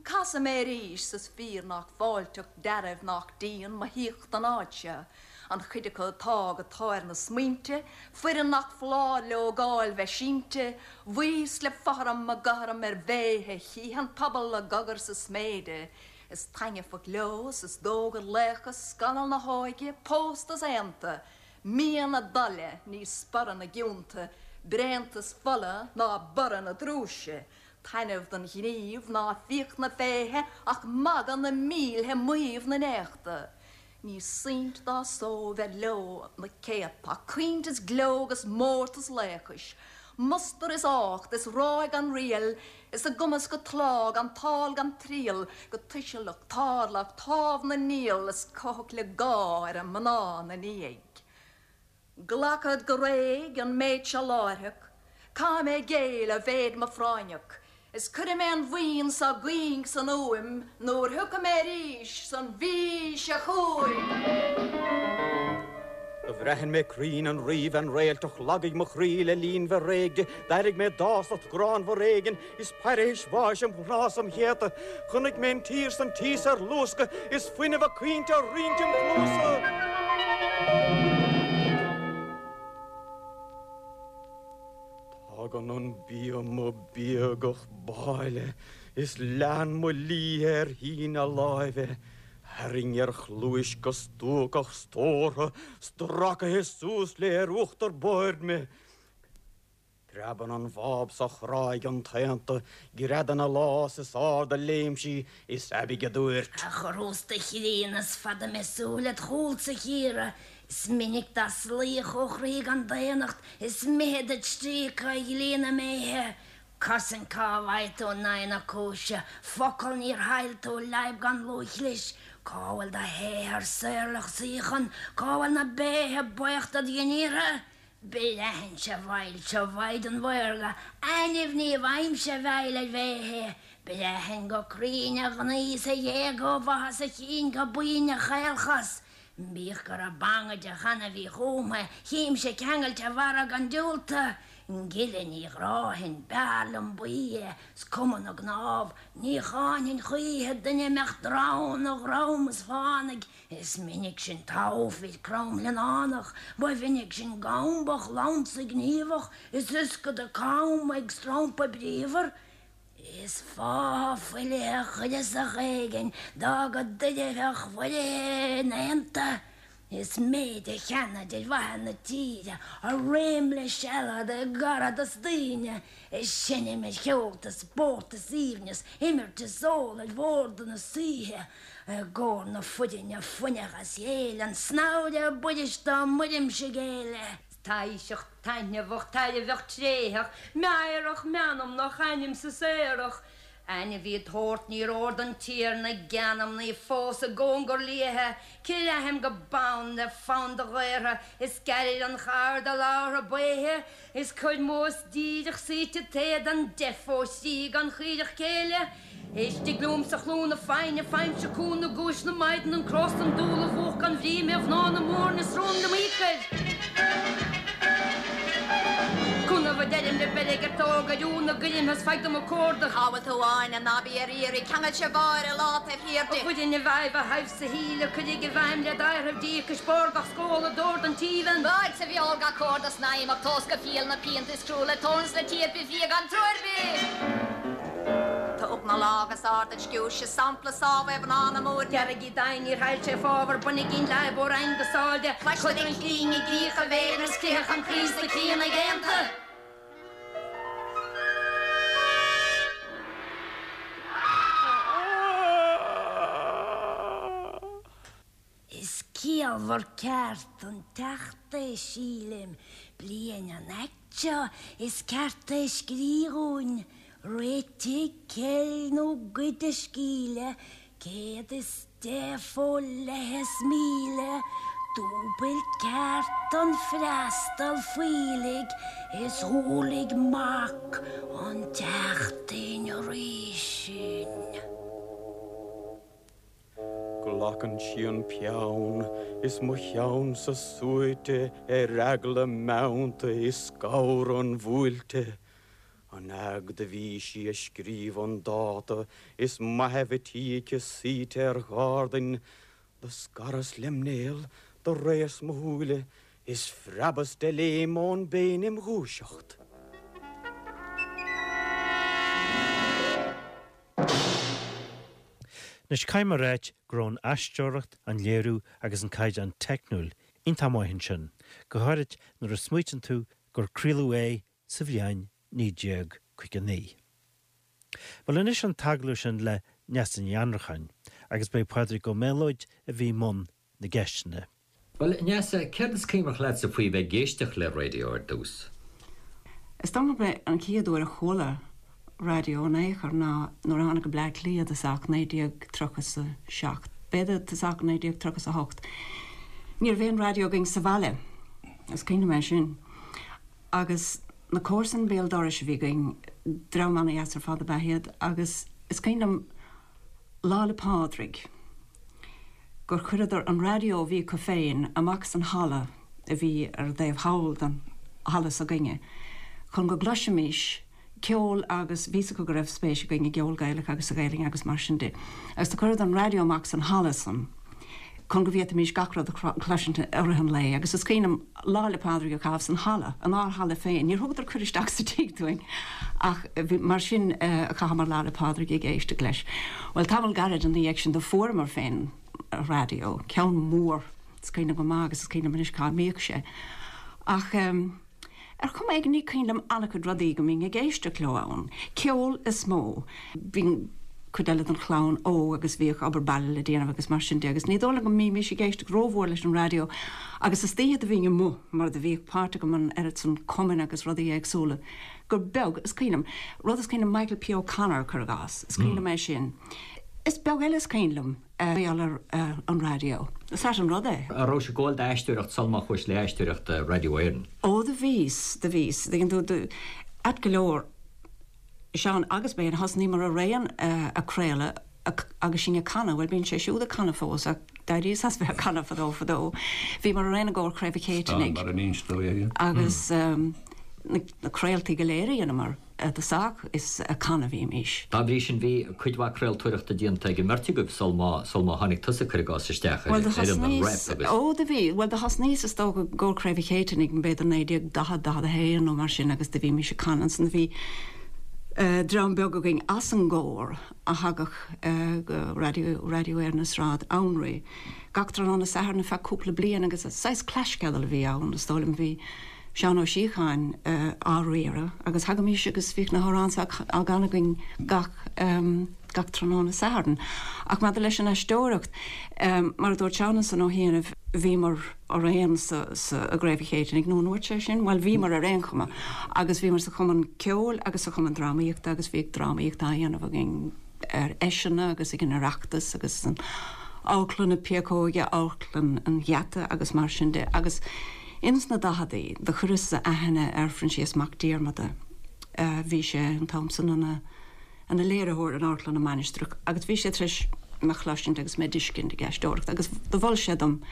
Casfaidh mé arís 's is fíor nách fáilteach dearbh nách dian mo thíocht don áit seo, an chuid acu atá go táir na smaointe, foireann nach foláir leo gáil bheith sínte, bhuíos le fothram a gcothrom ar bhéithe chífidh an pobal a gcogar sa sméide, is taitneamhach leo 's is dóigh gur laochas scannal na hóige, pósta 's aonta, mian a dtoile ní sporadh na gcionta, bréantas fola ná borradh na drúise. Taitneamh don ghníomh ná fiach na féithe ach magadh na mílthe maíomh na n-éachta. Ní saint dá só bheith leo na céadta ach caoint is gleo agus mórtas laochais, mustar is ácht is ráig gan riail is a gcumas go tláth gan tál gan triall go tuisealach tarlach támh na ngiall is cuthach le gá ar a mná 'na ndiaidh. Glacad go réidh an méid seo láithreach, caithfidh mé géilleadh a mhéid mo phráinneach, is cuirfidh mé an bhuíon so gcuing san úim nuair thiocfaidh mé arís san mhí seo chugainn. Do bhraithin mé cruinn an ríbhean réaltach, lagaigh mo chroí le linn bheith réidh di, d'airigh mé dásacht ghránmhar éigin, is pairitheis bháis im chnámha 's im chéadta. Chonaic mé an tír 's an tíos ar luascadh is fuinneamh a caointe á roinnt im chluasa. Tagann an bia mo bíogach báile is lean mo liath ar shíneadh láimhe, tharraing ar chluais go stuacach stórtha, stracaithe suas léi ar uachtar boird mé. Preabann an bháb 's a chráigh an t-aonta, greadann a lámh 's is ard a léim sí, is aibidh a dúirt. A chorústa chríonna is fada mé súil id chúlsa chíoradh, Is minic d'asalaíodh ó chroí gan daonnacht, Is mithid duit stríocadh a dhlí na mbéithe. Cosaint cá bhfaighidh tú in aghaidh na cúise, Focal níor shail tú leadhb gan lúthchlis, Cá bhfuil do shaothar saorlach suíochan, Cá bhfuil na béithe baochta id ghníortha? Braitheann-se a bhfaighilse ó mhaighdean mhaorga, ainimh ní bhfaighimse a bhfeighil ar bhéithe. Braitheann go cruinn a ghnaoi 's a ghéag ó bhaitheas a chinn go boinn a chaolchos. Bíodh go raibh bangaide cheana bhí chúmtha, chímse ceangailte mhara gan diúltadh. Gile ní ghráfainn, b'fhearr liom buí é, 's cuma na gcnámh, ní cháinfinn choíche duine a mbeadh dronn a dhrom is fánaidh. Is minic sin togha fir cromghlionnánach, ba mhinic sin gambach lansa gníomhach, is ioscada cam ag strompadh bríomhar. Is fátha fuilithe chuireasach éigin d'fhága d'oirtheach mhuirithe in aonta. Is méid a cheannaid ar mhaithe na tíre, a réim le sealad i gcaradas daoine, is seinm ar cheolta, spórt is aoibhneas, imirt is ól ar bhórda na saoithe. I gcomhair na foirinne fuineach as chéile, an snamhaire buiris dá mbuirimse géille. Taoiseach taitneamhach tairbheach tréitheach, meidhreach meanmnach ainmse saorach. Ainmhí d'shórt níor fhóir don Tiarna geanmnaí fós i gcóngar liatha, Creathaim go bonn le fonn do ghaortha, is gearr an char do labhartha baotha, Is cuir mós díreach suite t'éadan deif ó thrí gan chaoireach céille. Istigh liomsa chlú na foighne, faighimse cúnamh guais na maighdean, an cros, an dúil, a mhúch gan bhrí mé mhná na mbúirne is rún liom íocair. Cúnamh a deirim le beirg ar tóg ar iún na gcuirim is faigh dom a comhardadh. Cá bhfuil tú Áine, ná bí ar iarraidh, ceangail se bháire lá taobh thiar di. A bhfoireann i bhfeidhm a thaibh sa shíle, cuirig i bhfeidhm le d'adhradh díocais, barr gach scóla, dord an tíbheann. Báid sa bhfeoil gach córda snaidhm ach tomhas go fial na pianta is crua le tóin 's le tír bith fia gan trua ar bith. Tóg na lámha is ard an sciúirse, sampla sámh é mhná na Múirne. Dearg í d'aghaidh níor shail sé fábhar, bainigí an leadhb ó Fhraing go sáil de. Cloistear an chlíng i gcrích a bhéil is critheadh an croí sna críonna aonta. Gaolmhar ceart don Teachta é, sílim, bliain an aict seo is ceart é scrí dhúinn, réitigh ceil nó goid a scíle, 110 fó leith is 1,000, dúbailt ceart don freastal fuílligh is shúiligh mac an tseachtain arís sinn. Glacann sí an peann is mo cheannsa suaite ar eagla meannta i scamhar an bhuailte. An fhaid do bhí sí a scríobh an dáta is maitheamh a tí aici suite ar ghardain, do scaras lem néal, do réas mo shúile is phreabas de léim ón bpéin im dhúiseacht. Anois caithfidh mé a ráit go raibh an aisteoireacht, an léiriú agus an caighdeán teicniúil iontach maith ansin, go háirid nuair a smaoitíonn tú gur craoladh é sa bhliain 1959. Bhuel anois an t-agallamh sin le Neasa Ní Annracháin agus b'é Pádraig Ó Méalóid a bhí i mbun na gceisteanna. Bhuel, a Neasa, céard is cuimhneach leatsa faoi bheith ag éisteacht le raidió ar dtús? Is dóigh liom gurb é an chéad uair a chuala raidió in aon chor ná nuair a tháinig go Bleá Cliath i dtosach 1937, b'fhéidir tosach 1938. Ní raibh aon raidió againn sa bhaile, is cuimhin liom é sin. Agus na comharsain béal dorais a bhí againn, dream ana-dheas ar fad ab ea iad, agus is cuimhin liom Lá 'le Pádraig, gur chuireadar an raidió a bhí acu féin amach san halla a bhí ar an dtaobh thall den halla s'againne chun go gcloisfimís ceol agus bhí 'fhios acu go raibh spéis againn i gceol Gaelach agus sa Ghaelainn agus mar sin de. Agus do chuireadar an raidió amach san halla san chun go bhféadfaimís gach rud a chloisint i rith an lae agus is cuimhin liom Lá 'le Pádraig a chaitheamh san halla, inár halla féin. Níor thugadar cuireadh isteach sa tigh dúinn ach mar sin a chaitheamar Lá 'le Pádraig ag éisteacht leis. Bhuel, tamall gairid ina dhiaidh sin do fuaireamar féin raidió, ceann mór, is cuimhin liom go maith agus is cuimhin liom anois cá mbíodh sé. Ach ar chuma éigin ní cuimhin liom an-chuid rudaí go mbínn ag éisteacht leo ann. Ceol is mó. Bhí cuid eile den chlann óg agus bhíodh obair baile le déanamh agus mar sin de agus ní dóigh liom go mbímís ag éisteacht rómhór leis an raidió agus istoíche do bhínn amuigh mar do bhíodh páirt agam in oiread san cumainn agus rudaí éagsúla gur beag is cuimhin liom. Rud is cuimhin liom Michael P. O'Connor cuir i gcás, is cuimhin liom é sin. Is beag eile is cuimhin liom mar gheall ar an raidió. Is ait an rud é. An raibh sibh ag gabháil d'aisteoireacht sul má chuais le aisteoireacht Raidió Éireann? Ó do bhíos, do bhíos. Tuigeann tú, do, ait go leor, Seán agus mé, thosnaíomar araon ag craoladh agus sinn ag canadh, bhuel bíonn sé siúd ag canadh fós ach d'éiríos as bheith ag canadh fadó fadó. Bhíomar araon i gcomhar Chraobh an Chéitinnigh agus na craoltaí go léir a dheineamar i dtosach is ag canadh a bhímís. Dá bhrí sin bhí cuid mhaith craoltóireachta déanta ag an mbeirt agaibh sul má sul má tháinig tusa cuir i gcás isteach ar Bhuel do fhoireann an thosnaíos, Rep agus. ó do bhí, bhuel do thosnaíos is dócha i gcomhar Chraobh an Chéitinnigh b'fhéidir 1940, 41 nó mar sin agus do bhímís ag canadh ansan. Bhí dream beag againn as an gcomhar a thagadh go Raidió, Raidió Éireann i Sráid Anraí gach tráthnóna Sathairn ar feadh cúpla bliain agus saghas claisceadal a bhí ann is dóigh liom. Bhí Seán Ó Síocháin á riaradh agus thagaimís agus bhíodh na hamhráin á gcanadh againn gach gach tráthnóna Sathairn. Ach maidir leis an aisteoireacht, mar a dúirt Seán ansan ó chianaibh, bhíomar araon sa sa i gCraobh an Chéitinnigh, nó an ndúirt sé sin? Bhuel, bhíomar ar aon chuma agus bhíomar sa chumann ceoil agus sa chumann drámaíochta agus bhíodh drámaíocht á dhéanamh againn ar fheiseanna agus ag an Oireachtas agus san Amharclann na Péacóige, Amharclann an Gheata agus mar sin de agus Ins na daicheadaí do chuireas-sa aithne ar Phroinsias Mac Diarmada. Bhí sé an t-am san ina ina léiritheoir in Amharclann na Mainistreach agus bhí sé tar éis mé chloisint agus mé d'fheiscint ag aisteoireacht agus do mhol sé dom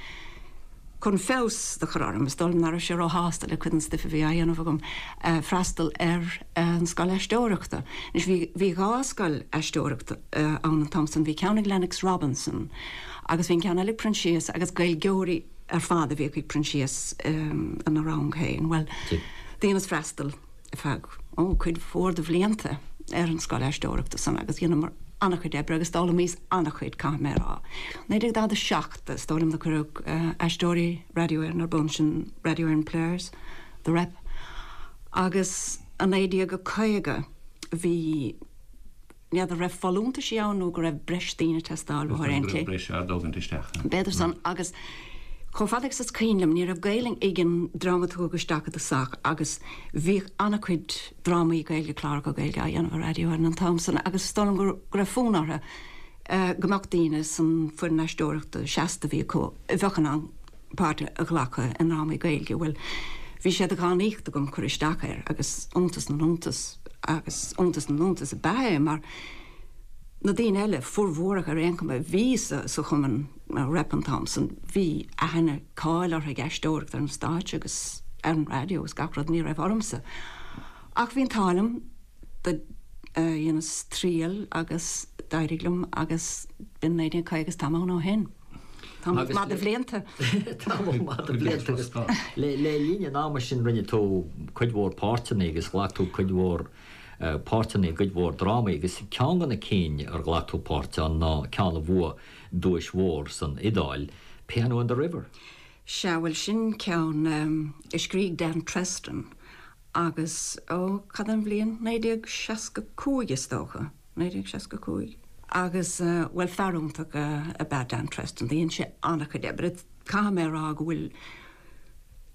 chun feabhas do chur orm, is dóigh liom nach raibh sé róshásta le cuid den stuif a bhí á dhéanamh agam, freastal ar an scoil aisteoireachta. Anois bhí bhí dhá scoil aisteoireachta ann an t-am san, bhí ceann ag Lennox Robinson agus bhí an ceann eile ag Proinsias agus Gaeilgeoirí ar fad a bhíodh ag Proinsias ina rang féin. Bhuel, dheineas freastal ar feadh, ó, cuid mhór de bhlianta ar an scoil aisteoireachta san agus dheineamar an-chuid oibre agus d'fhoghlaimíos an-chuid, caithfidh mé a rá. 1947, is dóigh liom, do cuireadh Aisteoirí Raidió Éireann ar bun, sin Radio Éireann Players, The Rep, agus i 1950 bhí, N'fheadar raibh folúntaisí ann nó go raibh breis daoine ag teastáil uathu ar aon tslí. B'fhéidir go raibh breis á dtógaint isteach. B'fhéidir san agus. Chomh fada agus is cuimhin liom, ní raibh Gaelainn ag an dream a tugadh isteach i dtosach agus bhíodh an-chuid drámaí Gaeilge, cláracha Gaeilge á dhéanamh ar Raidió Éireann an t-am san agus is dóigh liom go raibh fonn orthu go mbeadh daoine san foireann aisteoireachta seasta a bhí acu a bheadh in ann páirt a ghlacadh i ndrámaí Gaeilge. Bhuel, bhí sé de dhánaíocht agam cur isteach air agus iontas na n-iontas agus iontas na n-iontas ab ea é mar na daoine eile, formhór acu ar aon chuma, a bhí sa chumann Rep an t-am san, bhí aithne, cáil orthu ag aisteoireacht ar an stáitse agus ar an raidió agus gach rud, ní raibh ormsa. Ach bhí an t-ádh liom, do dheineas triail agus d'éirigh liom agus b'in 1950 is táim ann ó shin. Tamall maith de bhlianta. Tamall maith de bhlianta agus le linn an ama sin rinne tú cuid mhór páirteanna agus ghlac tú cuid mhór páirteanna i gcuid mhór drámaí agus ceann de na cinn ar ghlac tú páirt ann ná ceann a bhuaigh duais mhór san Iodáil, Piano in the River. Sea, bhuel sin ceann a scrígh Dan Treston agus, ó, cad é an bhliain? 1965 is dócha, 1965. Agus, bhuel fear iontach ab ea Dan Treston, dhein sé an-chuid oibre. Caithfidh mé a rá go bhfuil,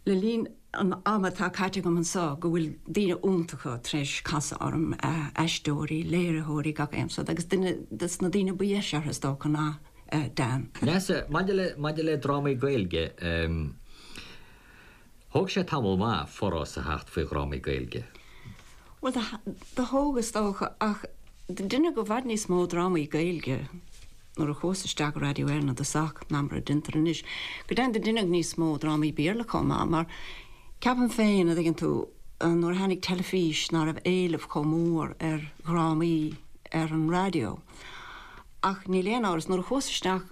le linn an ama atá caite agam anseo, go bhfuil daoine iontacha tar éis casadh orm, aisteoirí, léiritheoirí, gach aon sórt, agus duine des na daoine ba dheise orthu is dócha ná Dan. Neasa, maidir le, maidir le drámaí Gaeilge, thóg sé tamall maith forás a theacht faoi dhrámaí Gaeilge. Bhuel, do thóg is dócha, ach deineadh i bhfad níos mó drámaí Gaeilge nuair a chuas isteach i Raidió Éireann i dtosach ná mar a deintear anois. Go deimhin do deineadh níos mó drámaí Béarla chomh maith, mar ceapaim féin, a dtuigeann tú, nuair a tháinig teilifís ná raibh éileamh chomh mór ar dhrámaí ar an raidió. Ach níl aon amhras, nuair a chuas isteach,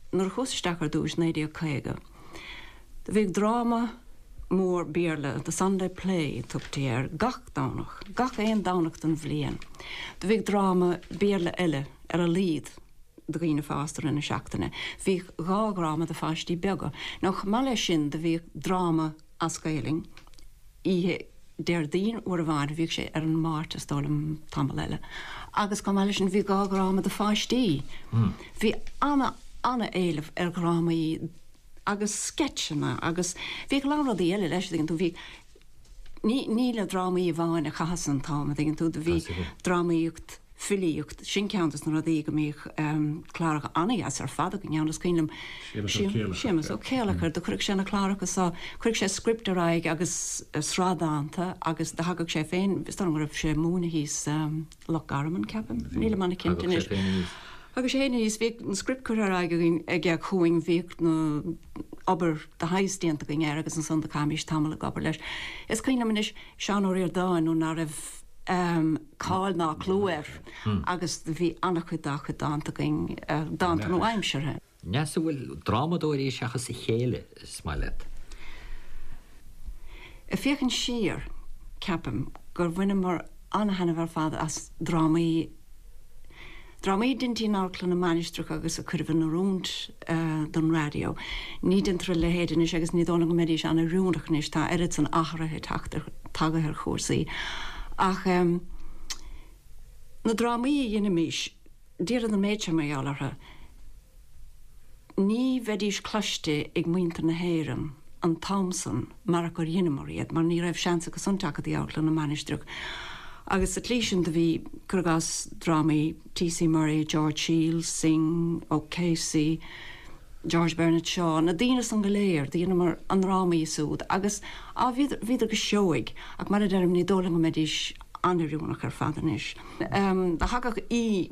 nuair a chuas isteach ar dtúis, 1950, do bhíodh dráma mór Béarla, The Sunday Play a tugtaí air, gach Domhnach, gach aon Domhnach den bhliain. Do bhíodh dráma Béarla eile ar a laghad do dhaoine fásta i rith na seachtaine. Bhíodh dhá dhráma do pháistí beaga. Nó chomh maith leis sin do bhíodh dráma as Gaelainn oíche Déardaoin uair amháin, bhíodh sé ar an Máirt is dóigh liom tamall eile, agus chomh maith leis sin bhí dhá dhráma do pháistí. Bhí ana, ana-éileamh ar dhrámaí agus sceitseanna agus bhíodh a lán rudaí eile leis, a dtuigeann tú, bhí, ní, ní le drámaí amháin a chaitheas an t-am, a dtuigeann tú, do bhí drámaíocht, filíocht, sin ceann dos na rudaí go mbíodh cláracha ana-dheas ar fad againn ann, is cuimhin liom Séamus Ó Céileachair, do chuireadh sé na cláracha so, chuireadh sé script ar aghaidh agus sraith dánta agus do thagadh sé féin, is dóigh liom go raibh sé ag múineadh thíos Loch Garman, ceapaim, nílim ana-chinnte anois. Thagadh sé féin aníos, bhíodh an script curtha ar aghaidh againn aige chugainn, bhíodh na obair de shaghas déanta againn air agus ansan do chaithimis tamall ag obair leis. Is cuimhin liom anois Seán Ó Ríordáin nuair ná raibh cáil ná clú air agus do bhí an-chuid dá chuid dánta againn, dánta nua-aimseartha. Neasa, an bhfuil drámadóirí seachas a chéile is maith leat? Ag féachaint siar, ceapaim gur bhaineamar an-thaitneamh ar fad as drámaí, drámaí a deintí in Amharclann na Mainistreach agus a cuireadh in oiriúint don raidió. Ní deintear a leithéid anois agus ní dóigh liom go mbeidís an-oiriúnach anois, tá oiread san athraithe teacht ar, tagaithe ar chúrsaí. Ach na drámaí a dheinimís, déarfad an méid seo mar gheall orthu, Ní bheidís cloiste ag muintir na hÉireann an t-am san marach gur dheineamar iad, mar ní raibh seans acu san teacht go dtí Amharclann na Mainistreach. Agus sa tslí sin do bhí, cuir i gcás, drámaí T.C. Murray, George Shiels, Synge, O'Casey, George Bernard Shaw, na daoine san go léir, do dheineamar a ndrámaí súd agus, á, bhíodar, bhíodar go seoigh, ach mar a deirim, ní dóigh liom go mbeidís an-oiriúnach ar fad anois. Do thagadh aoi.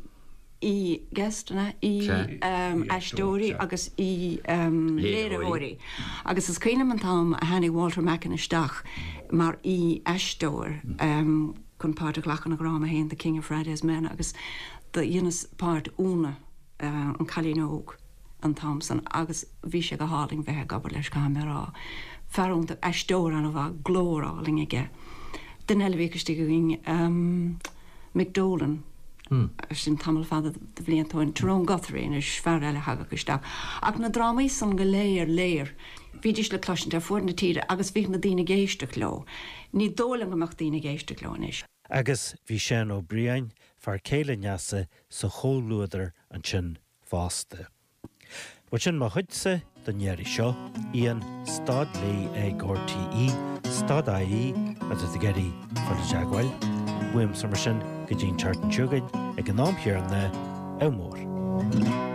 aoi-guest, an ea? Aoi-aisteoirí agus aoi-léiritheoirí. Agus is cuimhin liom an t-am a tháinig Walter Macken isteach mar aoi-aisteoir chun páirt a ghlacadh ina dhráma féin, The King of Friday's Men, agus do dheineas páirt Úna, an cailín óg, an t-am san agus bhí sé go hálainn bheith ag obair leis, caithfidh mé a rá. Fear iontach, aisteoir an-mhaith, glór álainn aige. Duine eile a bhíodh istigh againn, Mick Dolan, sin tamall fada de bhlianta ó shin, Tyrone Guthrie anois, fear eile a thagadh isteach. Ach na drámaí san go léir, léir, bhídís le cloisint ar fuaid na tíre agus bhíodh na daoine ag éisteacht leo. Ní dóigh liom go mbeadh daoine ag éisteacht leo anois. Agus bhí Seán Ó Briain, fear céile Neasa, sa chomhluadar ansin fosta. Bhuel sin mo chuidse. don iarraidh seo, Ian stad léi ag RTÉ stad ie má tá tú ag iarraidh fáil i dteagmháil. Uaimse mar sin go dtí an tseachtain seo chugainn ag an am chéanna, ádh mór.